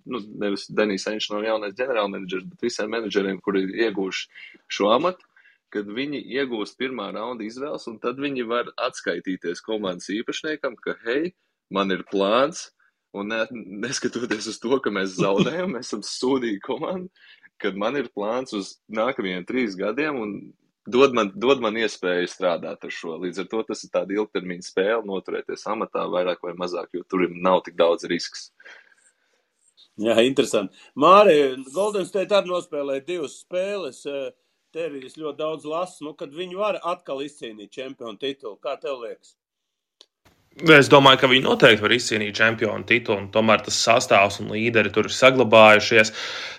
nevis Denijs Ainš nav jaunais ģenerālmenedžers, bet visiem menedžeriem, kuri ir ieguvuši šo amatu, kad viņi iegūst pirmā raunda izvēles, un tad viņi var atskaitīties komandas īpašniekam, ka, hei, man ir plāns, un neskatoties uz to, ka mēs zaudējam, mēs esam sūdīgi komanda, kad man ir plāns uz nākamajiem 3 gadiem, un dod man iespēju strādāt ar šo. Līdz ar to tas ir tāda ilgtermiņa spēle, noturēties amatā vairāk vai mazāk, jo tur nav tik daudz risks. Jā, interesanti. Māri, Golden State arī nospēlēja 2 spēles. Te arī es ļoti daudz lasu, kad viņi var atkal izcīnīt čempionu titulu. Kā tev liekas? Es domāju, ka viņi noteikti var izcīnīt čempionu titulu, un tomēr tas sastāvs un līderi tur ir saglabājušies.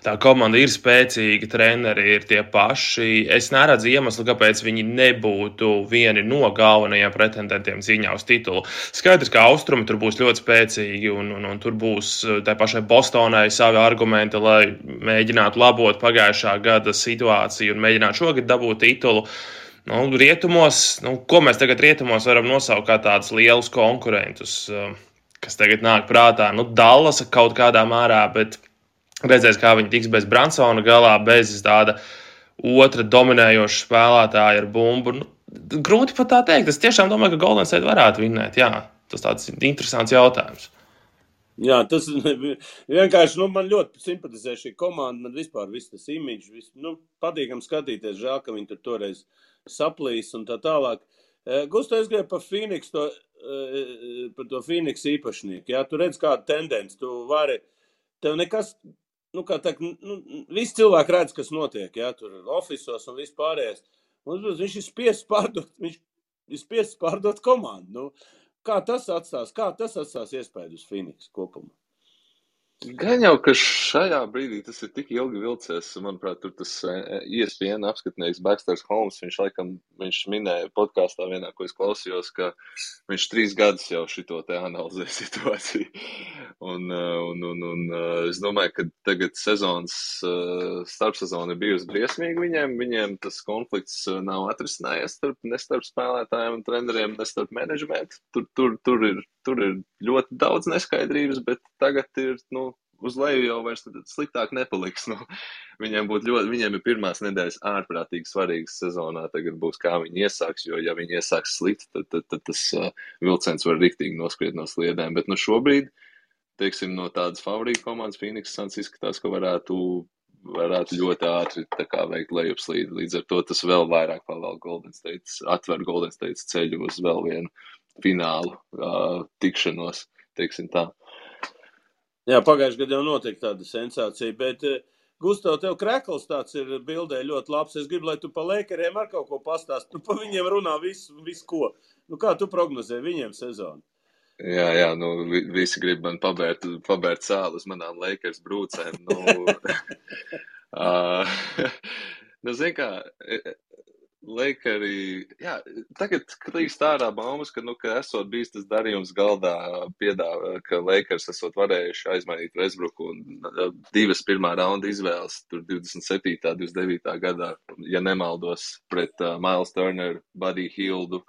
Tā komanda ir spēcīga, treneri ir tie paši. Es neredzu iemeslu, kāpēc viņi nebūtu vieni no galvenajiem pretendentiem cīņā uz titulu. Skaidrs, ka austrumi tur būs ļoti spēcīgi, un tur būs tai pašai Bostonai savi argumenti, lai mēģinātu labot pagājušā gada situāciju un mēģinātu šogad dabūt titulu. Rietumos, ko mēs tagad rietumos varam nosaukt kā tādus lielus konkurentus, kas tagad nāk prātā? Dallasa kaut kādā mērā, bet redzēs, kā viņi tiks bez Bransona galā, bez tāda otra dominējoša spēlētāja ar bumbu. Grūti pat tā teikt. Es tiešām domāju, ka Golden State varētu vinnēt. Jā, tas tāds interesants jautājums. Jā, tas vienkārši, man ļoti simpatizē šī komanda, man vispār viss tas imidžs, patīkam skatīties, žēl, ka viņi tur toreiz saplīs un tā tālāk. Gusto, es gribēju par to Phoenix īpašnieku, jā, tu redz kādu tendenci, tev nekas, visi cilvēki redz, kas notiek, jā, tur ofisos un viss pārējais, Viņš ir spiests pārdot komandu. Nu, kā tas atstās iespēju uz Phoenix kopumā? Gan jau, ka šajā brīdī tas ir tik ilgi vilcies, manuprāt, tur tas ESPN apskatnieks Baxters Holmes, viņš minēja podkāstā vienā, ko es klausījos, ka viņš 3 gadus jau šito te analizē situāciju. Un es domāju, ka tagad starpsezona ir bijusi briesmīga viņiem tas konflikts nav atrisinājies ne starp spēlētājiem un treneriem, ne starp menedžmentu. Tur ir ļoti daudz neskaidrības, bet tagad ir, uz leju jau vairs sliktāk nepaliks. Viņiem ir pirmās nedēļas ārprātīgi svarīgas sezonā. Tagad būs, kā viņi iesāks, jo ja viņi iesāks slikti, tad tas vilciens var riktīgi noskriet no sliedēm. Bet šobrīd, teiksim, no tādas favorīta komandas Phoenix Suns izskatās, ka varētu ļoti ātri veikt lejupslīdi. Līdz ar to tas vēl vairāk pavēl atver Golden State ceļu uz vēl vienu finālu tikšanos, teiksim tā. Jā, pagājušajā gadā jau notika tāda sensācija, bet Gustav, tev krekls tāds ir bildē ļoti labs. Es gribu, lai tu pa Lakeriem ar kaut ko pastāst. Pa viņiem runā visu ko. Kā tu prognozē viņiem sezonu? Jā, visi grib man pabērt sāli uz manām Lakers brūcēm. Zin kā, Lakeri, jā, tagad klīst ārā baumas, ka esot bijis tas darījums galdā piedāvā, ka Lakers esot varējuši aizmainīt Westbrooku un 2 pirmā raunda izvēles, tur 27. 29. gadā, ja nemaldos, pret Miles Turner, Buddy Hieldu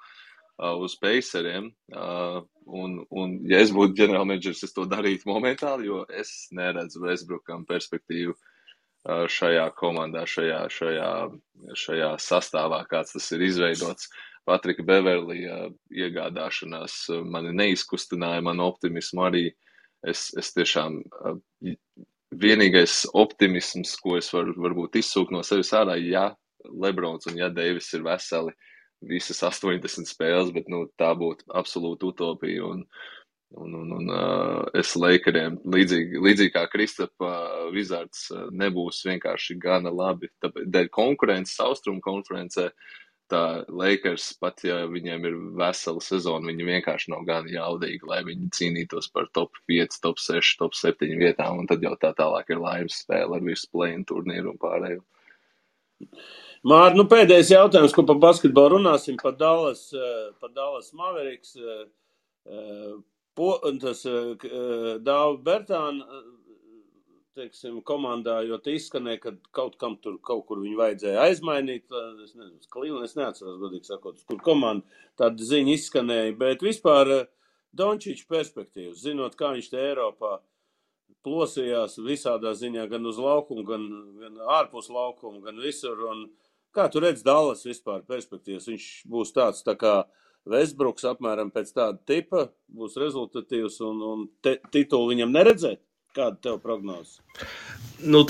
uz Paceriem. Un ja es būtu ģenerālmenedžers, es to darītu momentāli, jo es neredzu Westbrookam perspektīvu šajā komandā, šajā sastāvā, kāds tas ir izveidots. Patrika Beverlija iegādāšanās mani neizkustināja, manu optimismu arī. Es tiešām vienīgais optimisms, ko es varbūt izsūkt no sevis ārā, ja Lebrons un ja Deivis ir veseli visas 80 spēles, bet tā būtu absolūta utopija. Un es Lakeriem, līdzīgi kā Kristapa Wizards, nebūs vienkārši gana labi. Tāpēc dēļ konkurences Austrumu konferencē, tā Lakers, pat ja viņiem ir vesela sezona, viņi vienkārši nav gana jaudīgi, lai viņi cīnītos par top 5, top 6, top 7 vietām, un tad jau tā tālāk ir laimes spēle ar visu play-in turnīru un pārējo. Mār, pēdējais jautājums, ko par basketbolu runāsim, par Dallas Mavericks. Tas Dāva Bertāna, teiksim, komandā, jo te izskanēja, ka kaut kur viņu vajadzēja aizmainīt. Es nezinu, Cleveland, es neatceros, godīgi sakot, kur komanda tāda ziņa izskanēja, bet vispār Dončiča perspektīvas, zinot, kā viņš te Eiropā plosījās visādā ziņā, gan uz laukumu, gan ārpus laukumu, gan visur. Un kā tu redz Dallas vispār perspektīvas? Viņš būs tāds tā kā Westbrooks apmēram pēc tāda tipa, būs rezultatīvs un titulu viņam neredzēt? Kāda tev prognoze?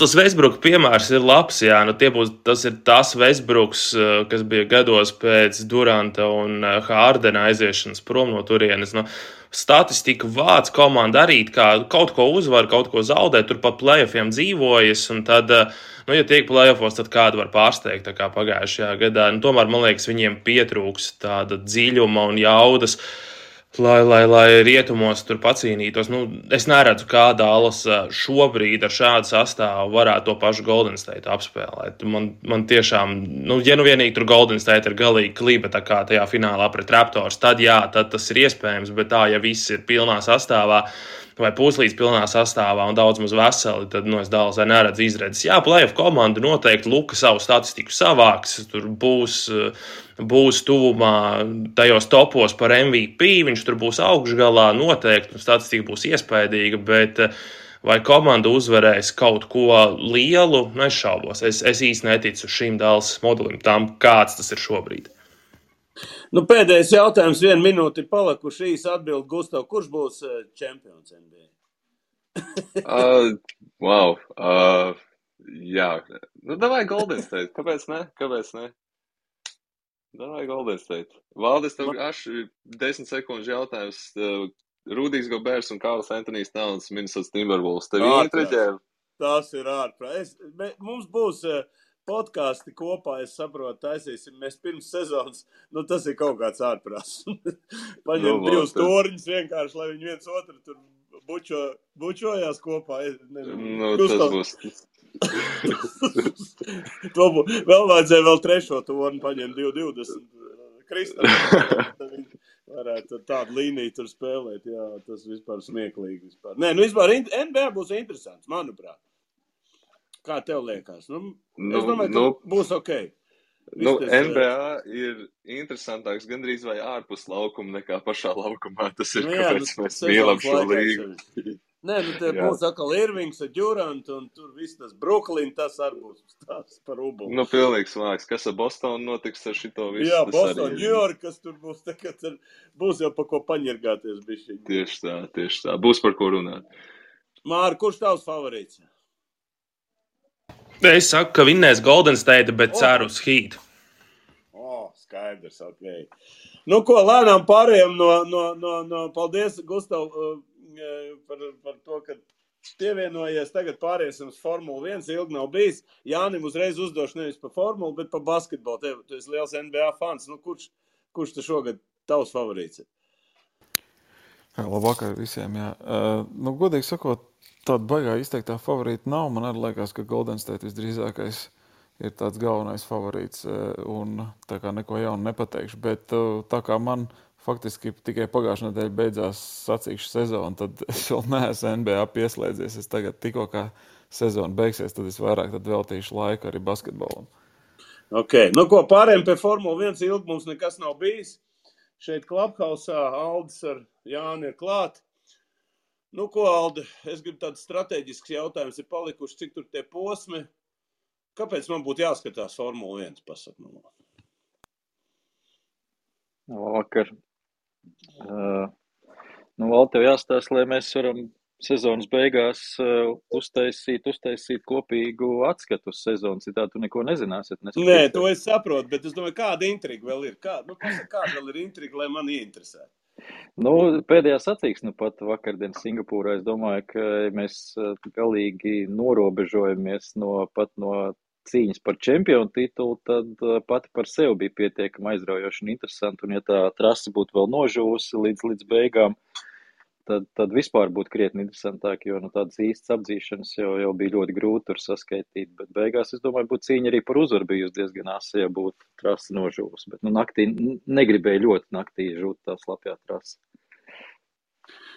Tas Westbrook piemērs ir labs, jā. Tas ir tas Westbrooks, kas bija gados pēc Duranta un Hārdena aiziešanas prom no turienes. Statistika vāc komanda arī kaut ko uzvar, kaut ko zaudē, tur pa playoffiem dzīvojas, un tad, ja tiek playoffos, tad kādu var pārsteigt, tā kā pagājušajā gadā. Tomēr, man liekas, viņiem pietrūks tāda dziļuma un jaudas, lai rietumos tur pacīnītos. Es neredzu, kā Dallas šobrīd ar šādu sastāvu varētu to pašu Golden State apspēlēt. Man tiešām, ja vienīgi tur Golden State ir galīgi kliba tā kā tajā finālā pret Raptors, tad tas ir iespējams, bet tā, ja viss ir pilnā sastāvā, vai puslīdz pilnā sastāvā un daudz maz veseli, tad es Dallasai neredzu izredzes. Jā, playoff komanda noteikti Luka savu statistiku savāks, tur būs tuvumā tajos topos par MVP, viņš tur būs augšgalā noteikti, un statistika būs iespaidīga, bet vai komanda uzvarēs kaut ko lielu, es šaubos. Es īsti neticu šim Dallas modelim, tam kāds tas ir šobrīd. Pēdējais jautājums, 1 minūte ir palikuši, īsi atbild Gustav, kurš būs čempions NBA? Wow. Jā. Davai Golden State. Kāpēc ne? Davai Golden State. Valdis, tev 10 sekundžu jautājums. Rudijs Gobers un Karls Antonijs Towns, Minnesota Timberwolves. Tev interesē? Tas ir ārprāt. Mums būs podkāsti kopā, es saprotu, taisīsim. Mēs pirms sezonas, tas ir kaut kāds ārprāts. Paņem divus torņus vienkārši, lai viņi viens otru tur bučojās kopā. Tas būs. Vēl vajadzēja vēl trešo torni paņemt 2,20. Kristam. Varētu tādu līniju tur spēlēt, jā, tas vispār smieklīgi. Vispār. Nē, vispār NBA būs interesants, manuprāt. Kā tev liekas? Es domāju, ka būs ok. NBA ir interesantāks gandrīz vai ārpus laukuma nekā pašā laukumā. Tas ir, kāpēc mēs mīlam šo līgu. Nē, te būs atkal Irvings ar Durant un tur viss tas Brooklyn, tas arī būs tās par ubulu. Pilnīgs vāks. Kas ar Bostonu notiks ar šito visu? Jā, Boston, New York, kas tur būs, būs jau par ko paņirgāties bišķiņi. Tieši tā. Būs par ko runāt. Māri, kurš tavs favorīts? Es saku, ka vinnēs Golden State, bet ceru uz Heat. Skaidrs, ok. Ko, lēnām pārējām no paldies, Gustav, par to, ka pievienojies. Tagad pāriesim uz Formulu 1, ilgi nav bijis. Jānim uzreiz uzdošu nevis par formulu, bet par basketbolu. Tu esi liels NBA fans. Kurš te šogad tavs favorīts? Labvakar visiem, jā. Godīgi sakot, tāda baigā izteiktā favorīta nav. Man arī liekas, ka Golden State visdrīzākais ir tāds galvenais favorīts. Un tā kā neko jaunu nepateikšu. Bet tā kā man faktiski tikai pagājušā nedēļa beidzās sacīkšu sezonu, tad es vēl neesmu NBA pieslēdzies. Es tagad tikko kā sezona beigsies, tad es vairāk veltīšu laiku arī basketbolam. Ok, ko pārējiem pie Formula 1 ilgi mums nekas nav bijis. Šeit Clubhouse-ā Aldis ar Jāni ir klāt. Ko, Aldi, es gribu tāds strateģisks jautājums ir palikuši, cik tur tie posmi. Kāpēc man būtu jāskatās Formula 1, pasak man? Vakar. Vēl tev jāstāsta, lai mēs varam sezonas beigās uztaisīt kopīgu atskatu uz sezonu. Citādi tu neko nezināsi. Nē, to es saprotu, bet es domāju, kāda intriga vēl ir? Kāda vēl ir intriga, lai man ieinteresētu? Pēdējā sacīksme pat vakardien Singapūrā. Es domāju, ka mēs galīgi norobežojamies no cīņas par čempionu titulu, tad pati par sevi bija pietiekami aizraujoši un interesanti. Un ja tā trase būtu vēl nožūsi līdz beigām, tad vispār būtu krietni interesantāk, jo tādas īstas apdzīšanas jau bija ļoti grūti tur saskaitīt. Bet beigās, es domāju, būtu cīņa arī par uzvaru bijusi diezgan asa, ja būtu trase nožūsi. Bet naktī negribēju ļoti naktī žūt tā slapjā trase.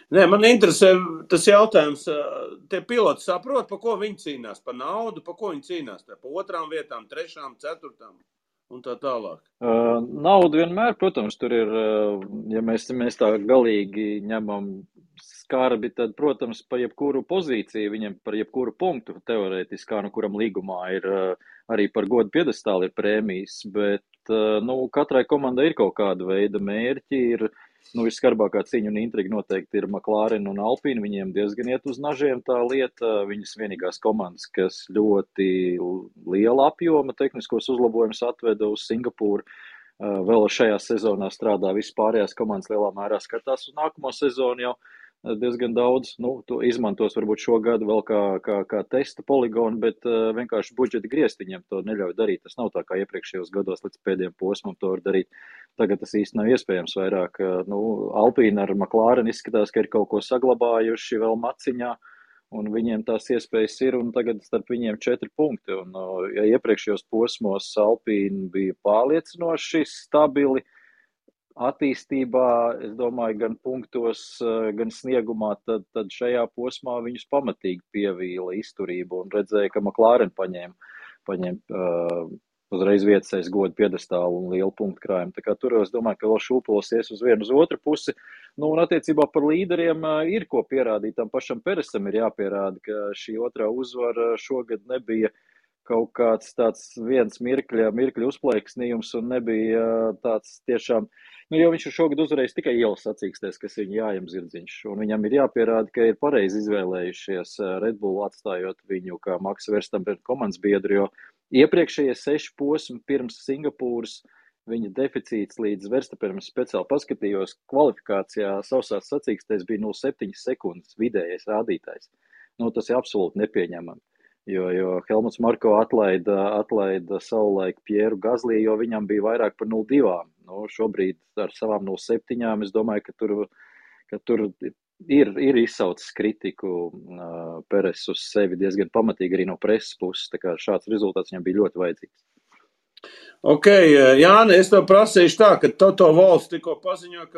Nē, man interesē tas jautājums, tie piloti saprot, pa ko viņi cīnās, pa naudu, pa ko viņi cīnās, pa 2. vietām, 3., 4. un tā tālāk. Nauda vienmēr, protams, tur ir, ja mēs tā galīgi ņemam skarbi, tad, protams, pa jebkuru pozīciju, viņam par jebkuru punktu teorētiski, kā kuram līgumā ir arī par godu piedestāli ir prēmijas, bet, katrai komandai ir kaut kāda veida mērķi, ir visskarbākā cīņa un intriga noteikti ir McLaren un Alpine. Viņiem diezgan iet uz nažiem tā lieta. Viņas vienīgās komandas, kas ļoti liela apjoma tehniskos uzlabojumus atveda uz Singapūru. Vēl šajā sezonā strādā visas pārējās komandas lielā mērā skatās uz nākamo sezonu jau diezgan daudz. To izmantos varbūt šogad vēl kā testa poligonu, bet vienkārši budžeta grieztiņiem to neļauj darīt. Tas nav tā kā iepriekšējos gados līdz pēdējiem posmam to var darīt. Tagad tas īsti nav iespējams vairāk. Alpine ar McLaren izskatās, ka ir kaut ko saglabājuši vēl maciņā, un viņiem tās iespējas ir, un tagad starp viņiem 4 punkti. Un, ja iepriekšējos posmos Alpine bija pārliecinoši stabili attīstībā, es domāju, gan punktos, gan sniegumā, tad šajā posmā viņus pamatīgi pievīla izturību un redzēja, ka McLaren paņēma uzreiz vietas aiz godu piedestālu un lielu punktu krājumu. Tā kā tur es domāju, ka vēl šūpolsies uz vienu uz otru pusi. Un attiecībā par līderiem ir ko pierādīt. Tam pašam Peresam ir jāpierāda, ka šī otrā uzvara šogad nebija kaut kāds tāds viens mirkļa uzplaiksnījums un nebija tāds tiešām, jo viņš šogad uzvarējis tikai ielas sacīkstēs, kas viņa jājam zirdziņš. Un viņam ir jāpierāda, ka ir pareizi izvēlējušies Red Bull atstājot viņu kā Max Verstappen komandas biedru, jo iepriekšējie 6 posmi pirms Singapūras viņa deficīts līdz Verstappenam speciāli paskatījos kvalifikācijā sausās sacīkstēs bija 0,7 sekundes vidējais rādītājs. Tas ir absolūti nepieņemami. Jo Helmuts Marko atlaida savulaik Pieru Gazlī, jo viņam bija vairāk par 0,2. Nu, šobrīd ar savām 0,7 es domāju, ka tur ir izsaucis kritiku Peres uz sevi diezgan pamatīgi arī no preses puses. Tā kā šāds rezultāts viņam bija ļoti vajadzīgs. Ok, Jāni, es tev prasīšu tā, ka Toto Wolffs tikko paziņo,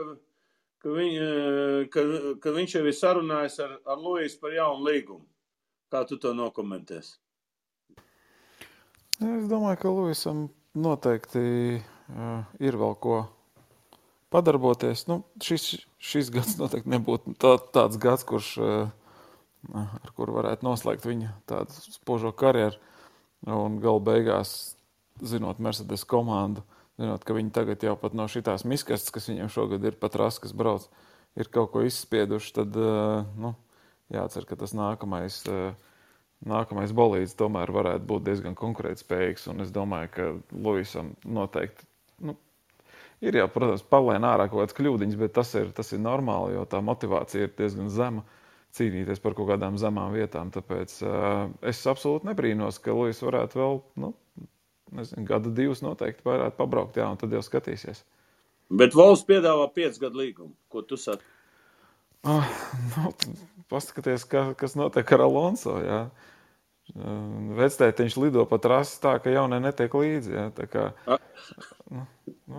ka viņš jau ir sarunājis ar Luisu par jaunu līgumu. Kā tu to nokomentēsi? Es domāju, ka Luisam noteikti ir vēl ko padarboties. Nu, šis gads noteikti nebūtu tāds gads, ar kuru varētu noslēgt viņa tādu spožo karjeru. Un galu beigās, zinot Mercedes komandu, zinot, ka viņi tagad jau pat no šitās miskastes, kas viņiem šogad ir pat ras, kas brauc, ir kaut ko izspieduši, tad jācer, ka tas nākamais bolīds tomēr varētu būt diezgan konkurētspējīgs. Un es domāju, ka Luisam noteikti ir jau, protams, pavlēn ārā kaut kāds kļūdiņas, bet tas ir normāli, jo tā motivācija ir diezgan zema cīnīties par kaut kādām zemām vietām. Tāpēc es absolūti nebrīnos, ka Luis varētu vēl, gadu divus noteikti varētu pabraukt, un tad jau skatīsies. Bet Wolffs piedāvā 5 gadu līgumu. Ko tu saki? Paskaties, kas notiek ar Alonso, jā. Vectētiņš lido pa trasi tā, ka jaunie netiek līdzi, jā. Tā kā...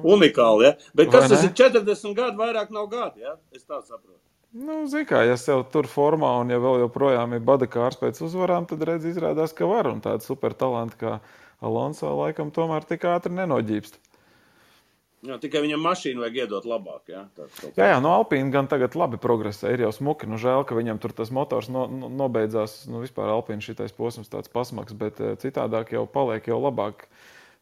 Unikāli, jā. Bet kas tas ir 40 gadu, vairāk nav gadu, jā? Es tā saprotu. Zin kā, ja sev tur formā un ja vēl joprojām ir badakārs pēc uzvarām, tad redz izrādās, ka var. Un tāda super talanti kā Alonso laikam tomēr tik ātri nenoģībst. Jā, tikai viņam mašīnu vajag iedot labāk, jā? Jā, no Alpīna gan tagad labi progresē, ir jau smuki. Žēl, ka viņam tur tas motors nobeidzās, vispār Alpīna šitais posms tāds pasmaks, bet citādāk jau paliek jau labāk.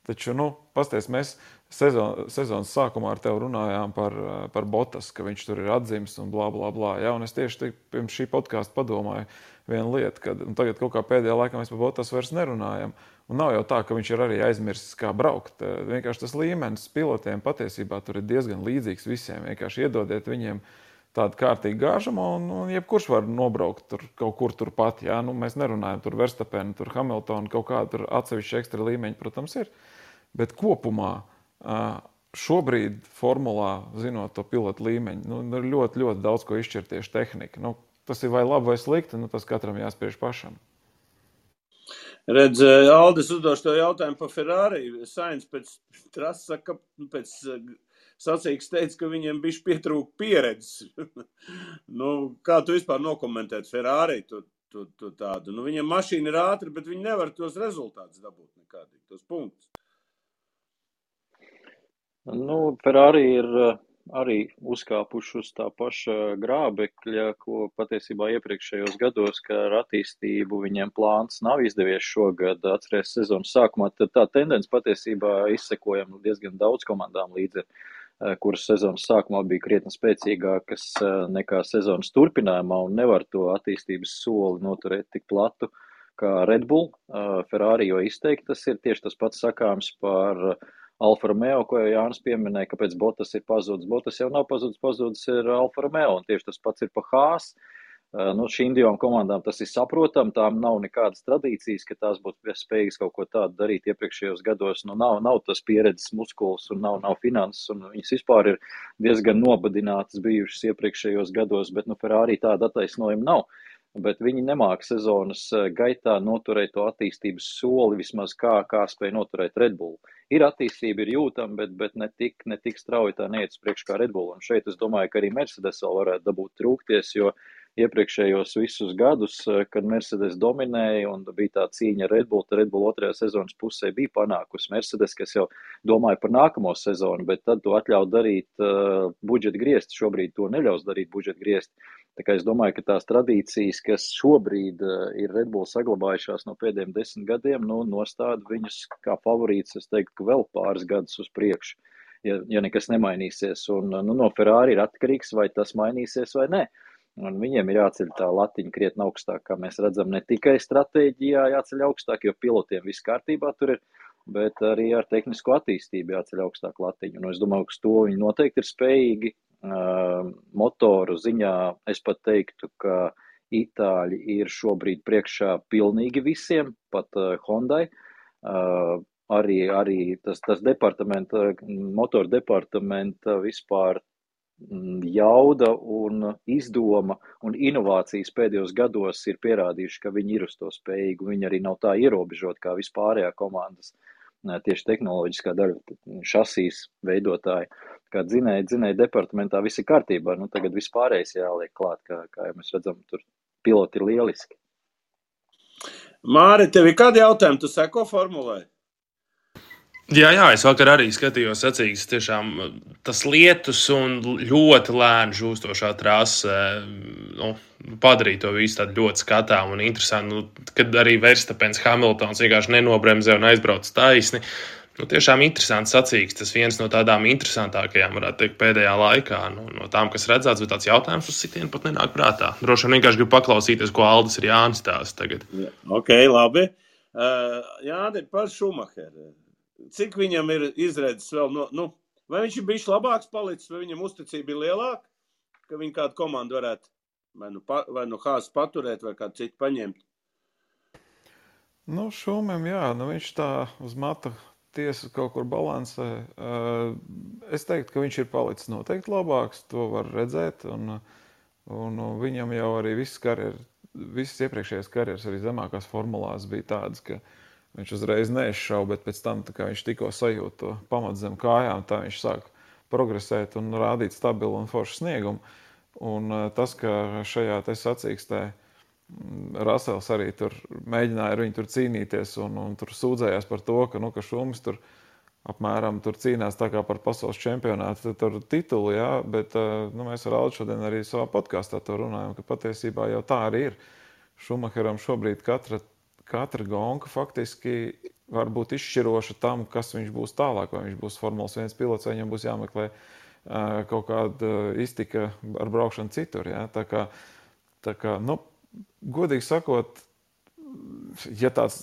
Taču, pasties, mēs sezonas sākumā ar tevi runājām par Bottas, ka viņš tur ir atzims un blā, blā, blā. Jā, un es tieši pirms šī podkāsta padomāju vienu lietu, kad tagad kaut kā pēdējā laikā mēs par Bottas vairs nerunājam. Un nav jau tā, ka viņš ir arī aizmirsis, kā braukt. Vienkārši tas līmenis pilotiem patiesībā tur ir diezgan līdzīgs visiem. Vienkārši iedodiet viņiem tādu kārtīgu gāžumu un jebkurš var nobraukt tur kaut kur turpat. Jā? Mēs nerunājam tur Verstappenu, tur Hamiltonu, kaut kādu tur atsevišķu ekstra līmeņu, protams, ir. Bet kopumā šobrīd formulā, zinot to pilotu līmeņu, ir ļoti, ļoti daudz ko izšķirt tieši tehnika. Tas ir vai labi vai slikti, tas katram jāspiež pašam. Redz, Aldis uzdošu to jautājumu par Ferrari. Sainz pēc trases saka, pēc sacīgas teica, ka viņiem bišķi pietrūka pieredzes. Kā tu vispār nokomentēt Ferrari tu tādu? Viņiem mašīna ir ātra, bet viņi nevar tos rezultātus dabūt nekādīgi, tos punktus. Ferrari ir arī uzkāpuši uz tā paša grābekļa, ko patiesībā iepriekšējos gados, ka ar attīstību viņiem plāns nav izdevies šogad. Atceries sezonas sākumā, tad tā tendence patiesībā izsekojam diezgan daudz komandām līdzi, kuras sezonas sākumā bija krietni spēcīgākas nekā sezonas turpinājumā un nevar to attīstības soli noturēt tik platu kā Red Bull. Ferrari jo izteikti tas ir tieši tas pats sakāms par Alfa Romeo, ko jau Jānis pieminēja, kāpēc Bottas ir pazudis. Bottas jau nav pazudis ir Alfa Romeo, un tieši tas pats ir pa Haas. Šīm divām komandām tas ir saprotam, tām nav nekādas tradīcijas, ka tās būtu spējīgas kaut ko tādu darīt iepriekšējos gados. Nav tas pieredzes muskuls un nav finanses, un viņas vispār ir diezgan nobadinātas bijušas iepriekšējos gados, bet Ferrari tāda attaisnojuma nav. Bet viņi nemāk sezonas gaitā noturēt to attīstības soli, vismaz kā spēja noturēt Red Bull. Ir attīstība, ir jūtama, bet ne tik strauji tā neiet uz priekšu kā Red Bull. Un šeit es domāju, ka arī Mercedes vēl varētu dabūt trūkties, jo iepriekšējos visus gadus, kad Mercedes dominēja un bija tā cīņa ar Red Bull, tad Red Bull otrajā sezonas pusē bija panākusi Mercedes, kas jau domāja par nākamo sezonu, bet tad to atļauj darīt budžeta griezti. Šobrīd to neļaus darīt budžeta griezti. Tā kā es domāju, ka tās tradīcijas, kas šobrīd ir Red Bull saglabājušās no pēdējiem 10 gadiem, nostāda viņus kā favorīts, es teiktu, ka vēl pāris gadus uz priekšu, ja nekas nemainīsies. Un no Ferrari ir atkarīgs, vai tas mainīsies vai ne. Un viņiem ir jāceļ tā latiņa krietni augstāk, kā mēs redzam, ne tikai stratēģijā jāceļ augstāk, jo pilotiem viss kārtībā tur ir, bet arī ar tehnisko attīstību jāceļ augstāk latiņu. Un es domāju, ka to viņi noteikti ir spējīgi. Motoru ziņā es pat teiktu, ka Itāļi ir šobrīd priekšā pilnīgi visiem, pat Hondai. Arī tas motoru departamenta vispār jauda un izdoma un inovācijas pēdējos gados ir pierādījuši, ka viņi ir uz to spējīgi. Viņi arī nav tā ierobežot kā vispārējā komandas, tieši tehnoloģiskā daļa, šasīs veidotāji. Kā dzinēja departamentā viss ir kārtībā, tagad vispārējais jāliek klāt, kā jau mēs redzam, tur piloti ir lieliski. Māri, tev ir kādi jautājumi? Tu seko formulai? Jā, es vakar arī skatījos sacīksts, tiešām tas lietus un ļoti lēni žūstošā trase padarīja to visu tādu ļoti skatām un interesantu, kad arī Verstapens Hamiltons vienkārši nenobremzē un aizbrauc taisni. Tiešām interesants sacīksts, tas viens no tādām interesantākajām, varētu teikt, pēdējā laikā, no tām, kas redzēts, bet tāds jautājums uz sitienu pat nenāk prātā. Droši vien vienkārši gribu paklausīties, ko Aldis ir Jānis stāsta tagad. Ok, labi. Jāni, par Schumacheru. Cik viņam ir izredzes vēl, vai viņš ir bijis labāks palicis, vai viņam uzticība ir lielāka, ka viņa kādu komandu varētu vai nu Haas paturēt, vai kādu citu paņemt? Šumam, jā, viņš tā uz mata tiesa kaut kur balansē. Es teiktu, ka viņš ir palicis noteikti labāks, to var redzēt, un viņam jau arī visas iepriekšējās karjeras arī zemākās formulās bija tādas, ka viņš uzreiz neizšauja, bet pēc tam, kā viņš tikko sajūt to pamatu zem kājām, tā viņš sāk progresēt un rādīt stabilu un foršu sniegumu. Un tas, ka šajā te sacīkstē Rasels arī tur mēģināja ar viņu tur cīnīties un tur sūdzējās par to, ka Šumis tur apmēram tur cīnās tā kā par pasaules čempionātu tur titulu, jā, bet mēs ar Aldu šodien arī savā podkāstā to runājam, ka patiesībā jau tā arī ir. Schumacheram šobrīd katra gonka faktiski var būt izšķiroša tam, kas viņš būs tālāk, vai viņš būs Formulas 1 pilots, vai viņam būs jāmeklē kaut kāda iztika ar braukšanu citur. Ja? Tā kā, godīgi sakot, ja tāds,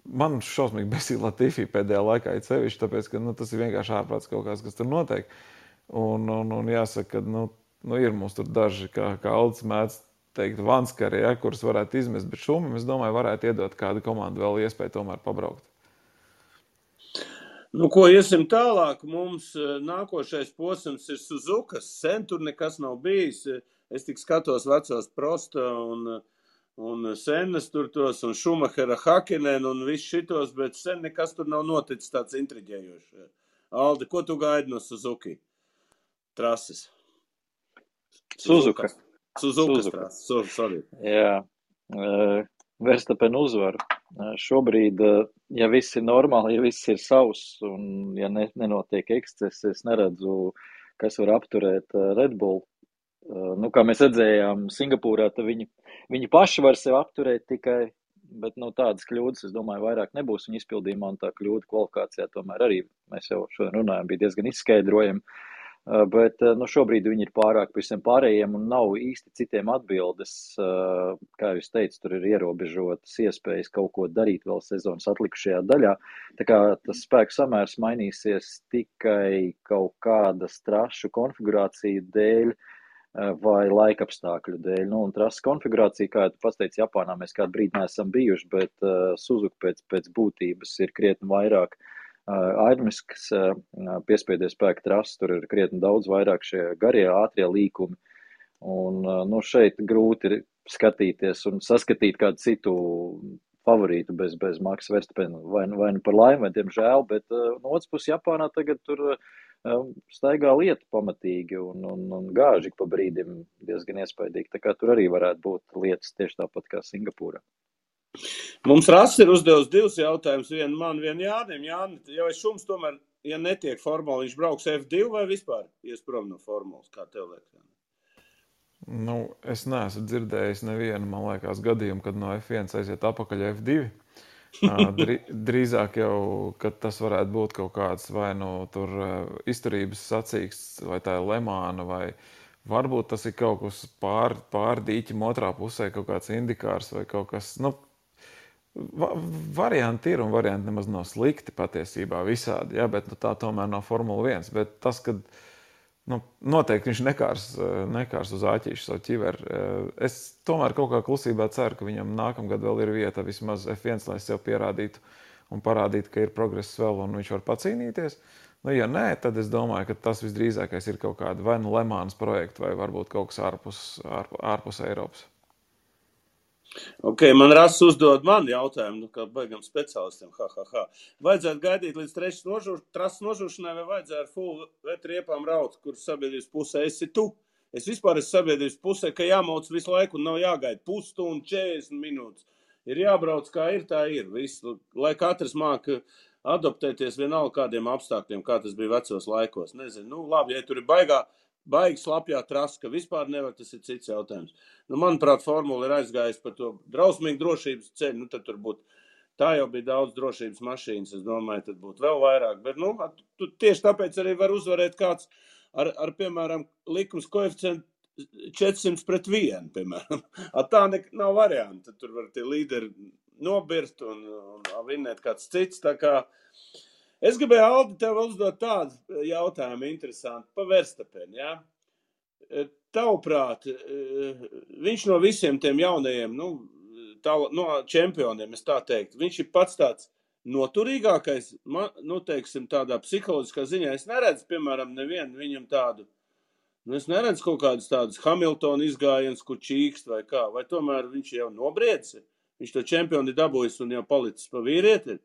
man šausmīgi besīja Latifi pēdējā laikā ir sevišķi, tāpēc, ka tas ir vienkārši ārprāts kaut kas tur notiek. Un jāsaka, ka ir mums tur daži, kā Aldis mēdz teikt, vanskari, ja, kuras varētu izmest, bet Šumim, es domāju, varētu iedot kādu komandu vēl iespēju tomēr pabraukt. Ko iesim tālāk, mums nākošais posms ir Suzukas, sen tur nekas nav bijis, es tik skatos vecos Prosta un Sennas tur tos, un Schumachera Hakkinen un viss šitos, bet sen nekas tur nav noticis tāds intriģējošs. Aldi, ko tu gaidi no Suzuki trases? Suzukas trases, sorry. Jā, Verstapen uzvaru. Šobrīd, ja viss ir normāli, ja viss ir savs un ja nenotiek eksces, es neredzu, kas var apturēt Red Bull. Kā mēs redzējām Singapūrā, tad viņi paši var sevi apturēt tikai, bet tādas kļūdas, es domāju, vairāk nebūs viņa izpildījumā, un tā kļūda kvalifikācijā tomēr arī, mēs jau šodien runājam, bija diezgan izskaidrojami. Bet šobrīd viņi ir pārāk visiem pārējiem un nav īsti citiem atbildes. Kā jūs teicu, tur ir ierobežotas iespējas kaut ko darīt vēl sezonas atlikušajā daļā. Tā kā tas spēku samērs mainīsies tikai kaut kādas trašu konfigurāciju dēļ vai laikapstākļu dēļ. Un trases konfigurācija, kā tu pats teici, Japānā mēs kādu brīdi neesam bijuši, bet Suzuka pēc būtības ir krietni vairāk aerodinamiskas piespiedu spēka trases, tur ir krietni daudz vairāk šie garie, ātrie līkumi. Un šeit grūti ir skatīties un saskatīt kādu citu favorītu bez Maxa Verstappena. Vai nu par laimi, vai diemžēl, bet no otras puses Japānā tagad tur staigā lieta pamatīgi un gāži pa brīdim diezgan iespaidīgi. Tā kā tur arī varētu būt lietas tieši tāpat kā Singapūrā. Mums Rass ir uzdevis 2 jautājumus, vienu man, vienu Jānim. Jāni, jau es Šums tomēr, ja netiek formula, viņš brauks F2 vai vispār ies prom no formulas, kā tev liekas? Es neesmu dzirdējis nevienu, man liekas, gadījumu, kad no F1 aiziet apakaļ F2. Drīzāk jau, kad tas varētu būt kaut kāds vai tur izturības sacīksts, vai tā ir Lemāna, vai varbūt tas ir kaut kas pār dīķim otrā pusē, kaut kāds indikārs vai kaut kas, varianti ir un varianti nemaz nav slikti patiesībā visādi, ja, bet tā tomēr nav Formula 1. Bet tas, kad Noteikti viņš nekārs uz āķīšu savu ķiveri. Es tomēr kaut kā klusībā ceru, ka viņam nākamgad vēl ir vieta vismaz F1, lai sev pierādītu un parādītu, ka ir progress vēl un viņš var pacīnīties. Ja nē, tad es domāju, ka tas visdrīzākais ir kaut kāda vai nu Lemānas projekta vai varbūt kaut kas ārpus Eiropas. Ok, man Rass uzdod man jautājumu, kā baigam speciālistiem, Vajadzētu gaidīt līdz trases nožūšanai vai vajadzētu ar full vetriepām raut, kur sabiedrības pusē esi tu? Es vispār esmu sabiedrības pusē, ka jāmauc visu laiku un nav jāgaida pusstundu, 40 minūtes. Ir jābrauc kā ir, tā ir. Visu, lai katrs māk adoptēties vienalga kādiem apstākļiem, kā tas bija vecos laikos. Nezinu, labi, ja tur ir baigi slapjā trasa, ka vispār nevar, tas ir cits jautājums. Manuprāt, formula ir aizgājusi par to drausmīgu drošības ceļu, tad tur būtu, tā jau bija daudz drošības mašīnas, es domāju, tad būtu vēl vairāk, bet, tieši tāpēc arī var uzvarēt kāds ar piemēram, likums koeficientu 400-1, piemēram. Tā nav varianta, tur var tie līderi nobirst un vinnēt kāds cits, tā kā es gribēju, Aldi, tev uzdot tādu jautājumu interesantu pa Verstapeni, ja? Tavuprāt, viņš no visiem tiem jaunajiem, no čempioniem, es tā teiktu, viņš ir pats tāds noturīgākais, teiksim, tādā psiholoģiskā ziņā. Es neredzu, piemēram, nevienu viņam tādu, es neredzu kaut kādus tādus Hamiltona izgājienus, kur čīkst vai kā, vai tomēr viņš jau nobriedzi, viņš to čempioni dabūjis un jau palicis pa vīrieti.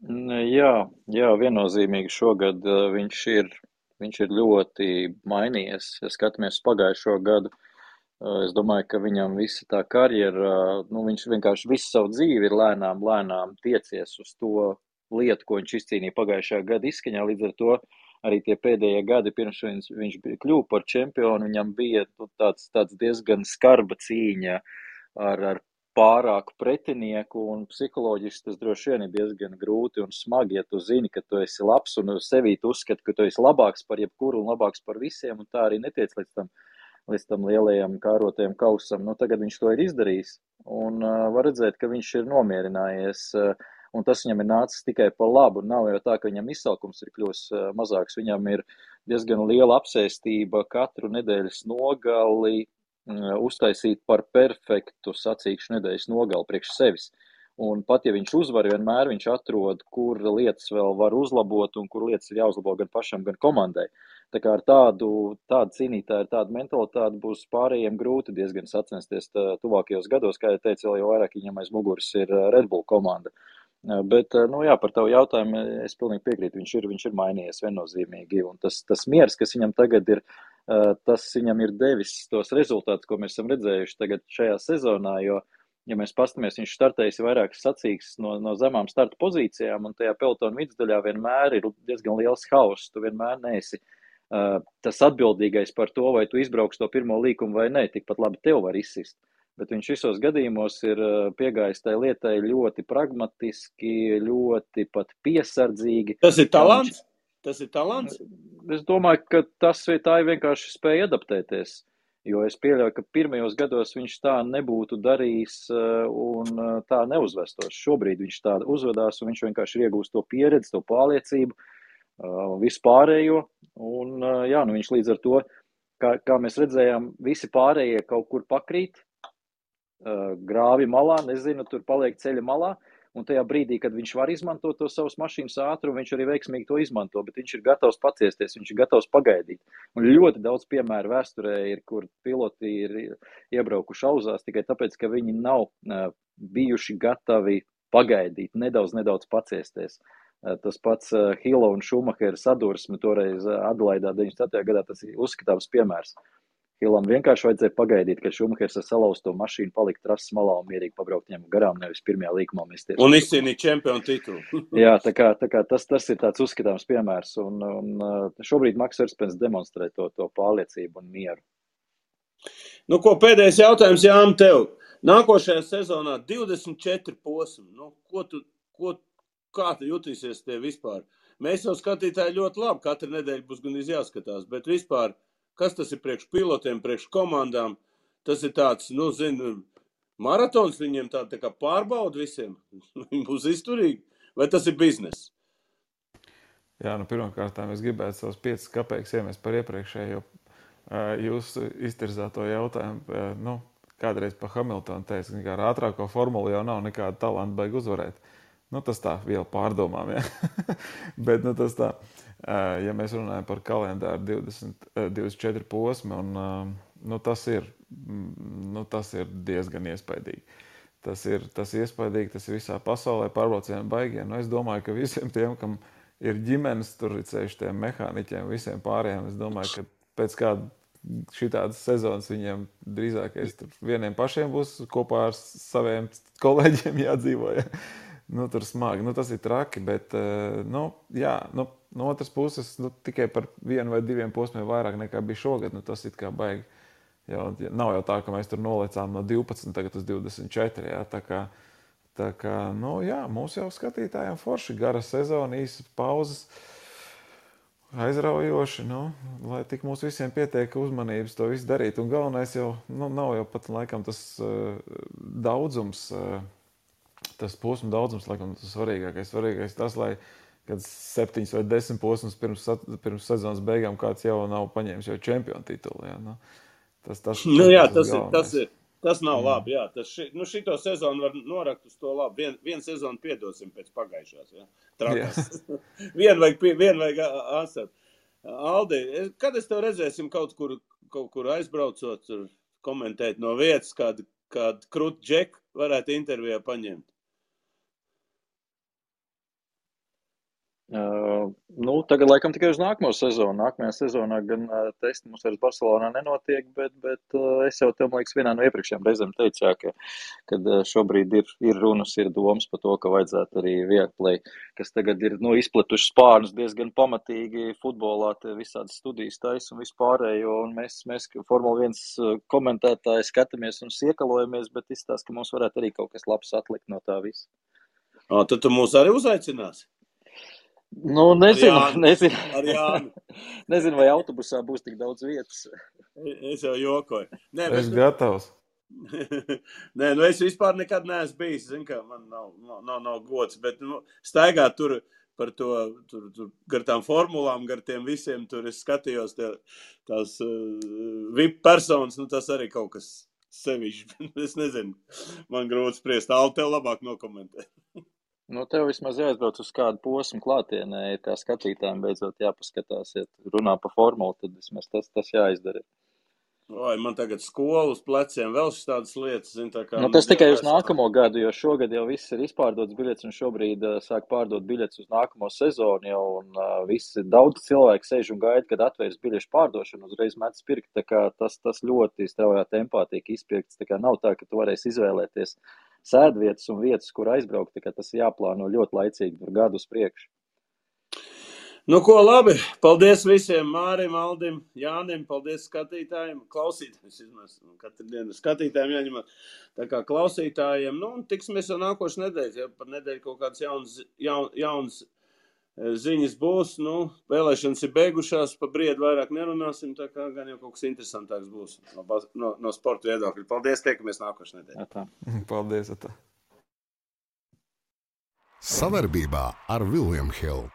Jā, viennozīmīgi šogad viņš ir ļoti mainījies. Ja skatāmies pagājušo gadu, es domāju, ka viņam visa tā karjera, viņš vienkārši visu savu dzīvi ir lēnām tiecies uz to lietu, ko viņš izcīnīja pagājušā gada izskaņā. Līdz ar to arī tie pēdējie gadi, pirms viņš kļuva par čempionu, viņam bija tāds diezgan skarba cīņa ar pārāku pretinieku, un psiholoģiski tas droši vien ir diezgan grūti un smagi, ja tu zini, ka tu esi labs un sevī tu uzskati, ka tu esi labāks par jebkuru un labāks par visiem, un tā arī netiec līdz tam lielajam kārotajam kausam. Tagad viņš to ir izdarījis, un var redzēt, ka viņš ir nomierinājies, un tas viņam ir nācis tikai par labu. Nav jau tā, ka viņam izsalkums ir kļūs mazāks, viņam ir diezgan liela apsēstība katru nedēļas nogali, uztaisīt par perfektu sacīkšu nedēļas nogali priekš sevis. Un pat, ja viņš uzvar, vienmēr viņš atrod, kur lietas vēl var uzlabot un kur lietas ir jāuzlabo gan pašam, gan komandai. Tā kā ar tādu cīnītāju, tādu mentalitāti būs pārējiem grūti diezgan sacensties tuvākajos gados, kā jau teicu, vēl jau vairāk viņam aiz muguras ir Red Bull komanda. Bet, par tavu jautājumu es pilnīgi piekrītu, viņš ir mainījies viennozīmīgi, un tas miers, kas viņam tagad ir, tas viņam ir devis tos rezultātus, ko mēs esam redzējuši tagad šajā sezonā, jo, ja mēs pastamies, viņš startējis vairākas sacīkstes no zemām starta pozīcijām, un tajā pelotona vidusdaļā vienmēr ir diezgan liels hauss, tu vienmēr neesi tas atbildīgais par to, vai tu izbrauks to pirmo līkumu vai ne, tikpat labi tev var izsist. Bet viņš visos gadījumos ir piegājis tai lietai ļoti pragmatiski, ļoti pat piesardzīgi. Tas ir talants? Tas ir talants? Es domāju, ka tā ir vienkārši spēja adaptēties, jo es pieļauju, ka pirmajos gados viņš tā nebūtu darījis un tā neuzvestos. Šobrīd viņš tā uzvedās un viņš vienkārši ir iegūst to pieredzi, to pārliecību, vispārējo, un viņš līdz ar to, kā mēs redzējām, visi pārējie kaut kur pakrīt, grāvi malā, nezinu, tur paliek ceļa malā, un tajā brīdī, kad viņš var izmantot to savas mašīnas ātrumu, viņš arī veiksmīgi to izmanto, bet viņš ir gatavs paciesties, viņš ir gatavs pagaidīt. Un ļoti daudz piemēru vēsturē ir, kur piloti ir iebraukuši auzās tikai tāpēc, ka viņi nav bijuši gatavi pagaidīt, nedaudz paciesties. Tas pats Hilo un Šumahera sadursme toreiz Adelaidā 97. gadā, tas ir uzskatāms piemērs. Hilam vienkārši vajadzēja pagaidīt, kad Šumahers ar salauzto mašīnu palikt trases malā un mierīgi pabraukt viņam garām, nevis pirmajā līkumā mesties. Un izcīnīt čempionu titulu. Jā, tā kā tas ir tāds uzskatāms piemērs, un šobrīd Maks Verstapens demonstrē to pārliecību un mieru. Pēdējais jautājums, Jāni, tev. Nākošajā sezonā 24 posmi. Kā tu jutīsies tie vispār? Mēs jau skatītāji ļoti labi, katru nedēļu būs gan jāskatās, bet vispār, kas tas ir priekš pilotiem, priekš komandām? Tas ir tāds, maratons viņiem tā kā pārbauda visiem. Viņi būs izturīgi. Vai tas ir biznes? Jā, pirmkārt, es gribētu savus 5 kapeikus iemest par iepriekšējo jūsu iztirzāto jautājumu. Kādreiz pa Hamiltonu teica, ka ar ātrāko formulu jau nav nekāda talanta baigi uzvarēt. Tas tā vēl pārdomām, ja. Bet, tas tā, ja mēs runājam par kalendāru 24 posmi, un tas ir diezgan iespaidīgi. Tas ir iespaidīgi, tas ir visā pasaulē pārbraucienu baigie. Es domāju, ka visiem tiem, kam ir ģimenes, tur ir ceļš tiem mehāniķiem, visiem pārējiem, es domāju, ka pēc kāda šitādas sezonas viņiem drīzākais tur vieniem pašiem būs kopā ar saviem kolēģiem jādzīvo, ja. Tur smagi, tas ir traki, bet, no otras puses, tikai par 1 vai 2 posmiem vairāk nekā bija šogad, tas it kā baigi. Nav jau tā, ka mēs tur nolecām no 12 tagad uz 24, ja, tā kā, mūs jau skatītājiem forši, gara sezona, īsas pauzes, aizraujoši, lai tik mums visiem pietiek uzmanības to visu darīt. Un galvenais jau, nav jau pat laikam tas daudzums, tas posmu daudzums, laikam tas svarīgākais. Svarīgais tas, lai kad 7 vai 10 posmus pirms sezonas beigām kāds jau nav paņēmis jau čempionu titulu. Ja, Tas nav labi, jā. Šito sezonu var norakt uz to labi. Vienu sezonu piedosim pēc pagājušās, jā. Trakas. Vien vajag asat. Aldi, kad es tev redzēsim kaut kur aizbraucot, tur komentēt no vietas, kādu krūtu džeku varētu intervijā paņemt? Tagad laikam tikai uz nākamo sezonu. Nākamajā sezonā gan testi mums vairs Barcelonā nenotiek, bet es jau tev, man liekas, vienā no iepriekšējām reizēm teicu, kad šobrīd ir runas, ir domas par to, ka vajadzētu arī Viaplay, kas tagad ir izpletuši spārnus diezgan pamatīgi futbolā, visādas studijas taisa un vispārējo, un mēs Formula 1 komentētāji skatāmies un siekalojamies, bet izstāst, ka mums varētu arī kaut kas labs atlikt no tā visa. Tad tu mūs arī uzaicinās? Nezinu. Ar Jānu. Nezinu, vai autobusā būs tik daudz vietas. Es jau jokoju. Es gatavs. Nē, es vispār nekad neesmu bijis, zin, kā man nav gods, bet staigāt tur par to, tur gar tām formulām, gar tiem visiem, tur es skatījos tās VIP personas, tas arī kaut kas sevišķi. Es nezinu, man grūti spriest. Aldi, tev labāk nokomentē. Tev vismaz jāizbrauc uz kādu posmu klātienē, kā skatītājiem beidzot jāpaskatās, ja runā par formulu, tad vismaz tas jāizdara. Man tagad skolu uz pleciem vēl tādas lietas, zin, tā kā... Tas tikai uz nākamo gadu, jo šogad jau viss ir izpārdots biļets un šobrīd sāk pārdot biļets uz nākamo sezonu jau, un visi daudz cilvēku sēž un gaida, kad atvērs biļešu pārdošanu, uzreiz metas pirkt, tā kā tas ļoti straujā tempā tiek izpirkts, tā kā nav tā, ka tu varēsi izvēlēties sēdvietas un vietas, kur aizbraukt, tā kā tas jāplāno ļoti laicīgi, gadu uz priekšu. Ko labi, paldies visiem, Mārim, Aldim, Jānim, paldies skatītājiem, klausītājiem, katru dienu skatītājiem jāņem, tā kā klausītājiem, un tiksimies jau nākošu nedēļu, ja par nedēļu kaut kāds jauns ziņas būs, vēlēšanas ir beigušās, pa briedu vairāk nerunāsim, tā kā gan jau kaut kas interesantāks būs no sporta viedokļa. Paldies, tiekamies nākošu nedēļu. Paldies, Sadarbībā ar William Hill.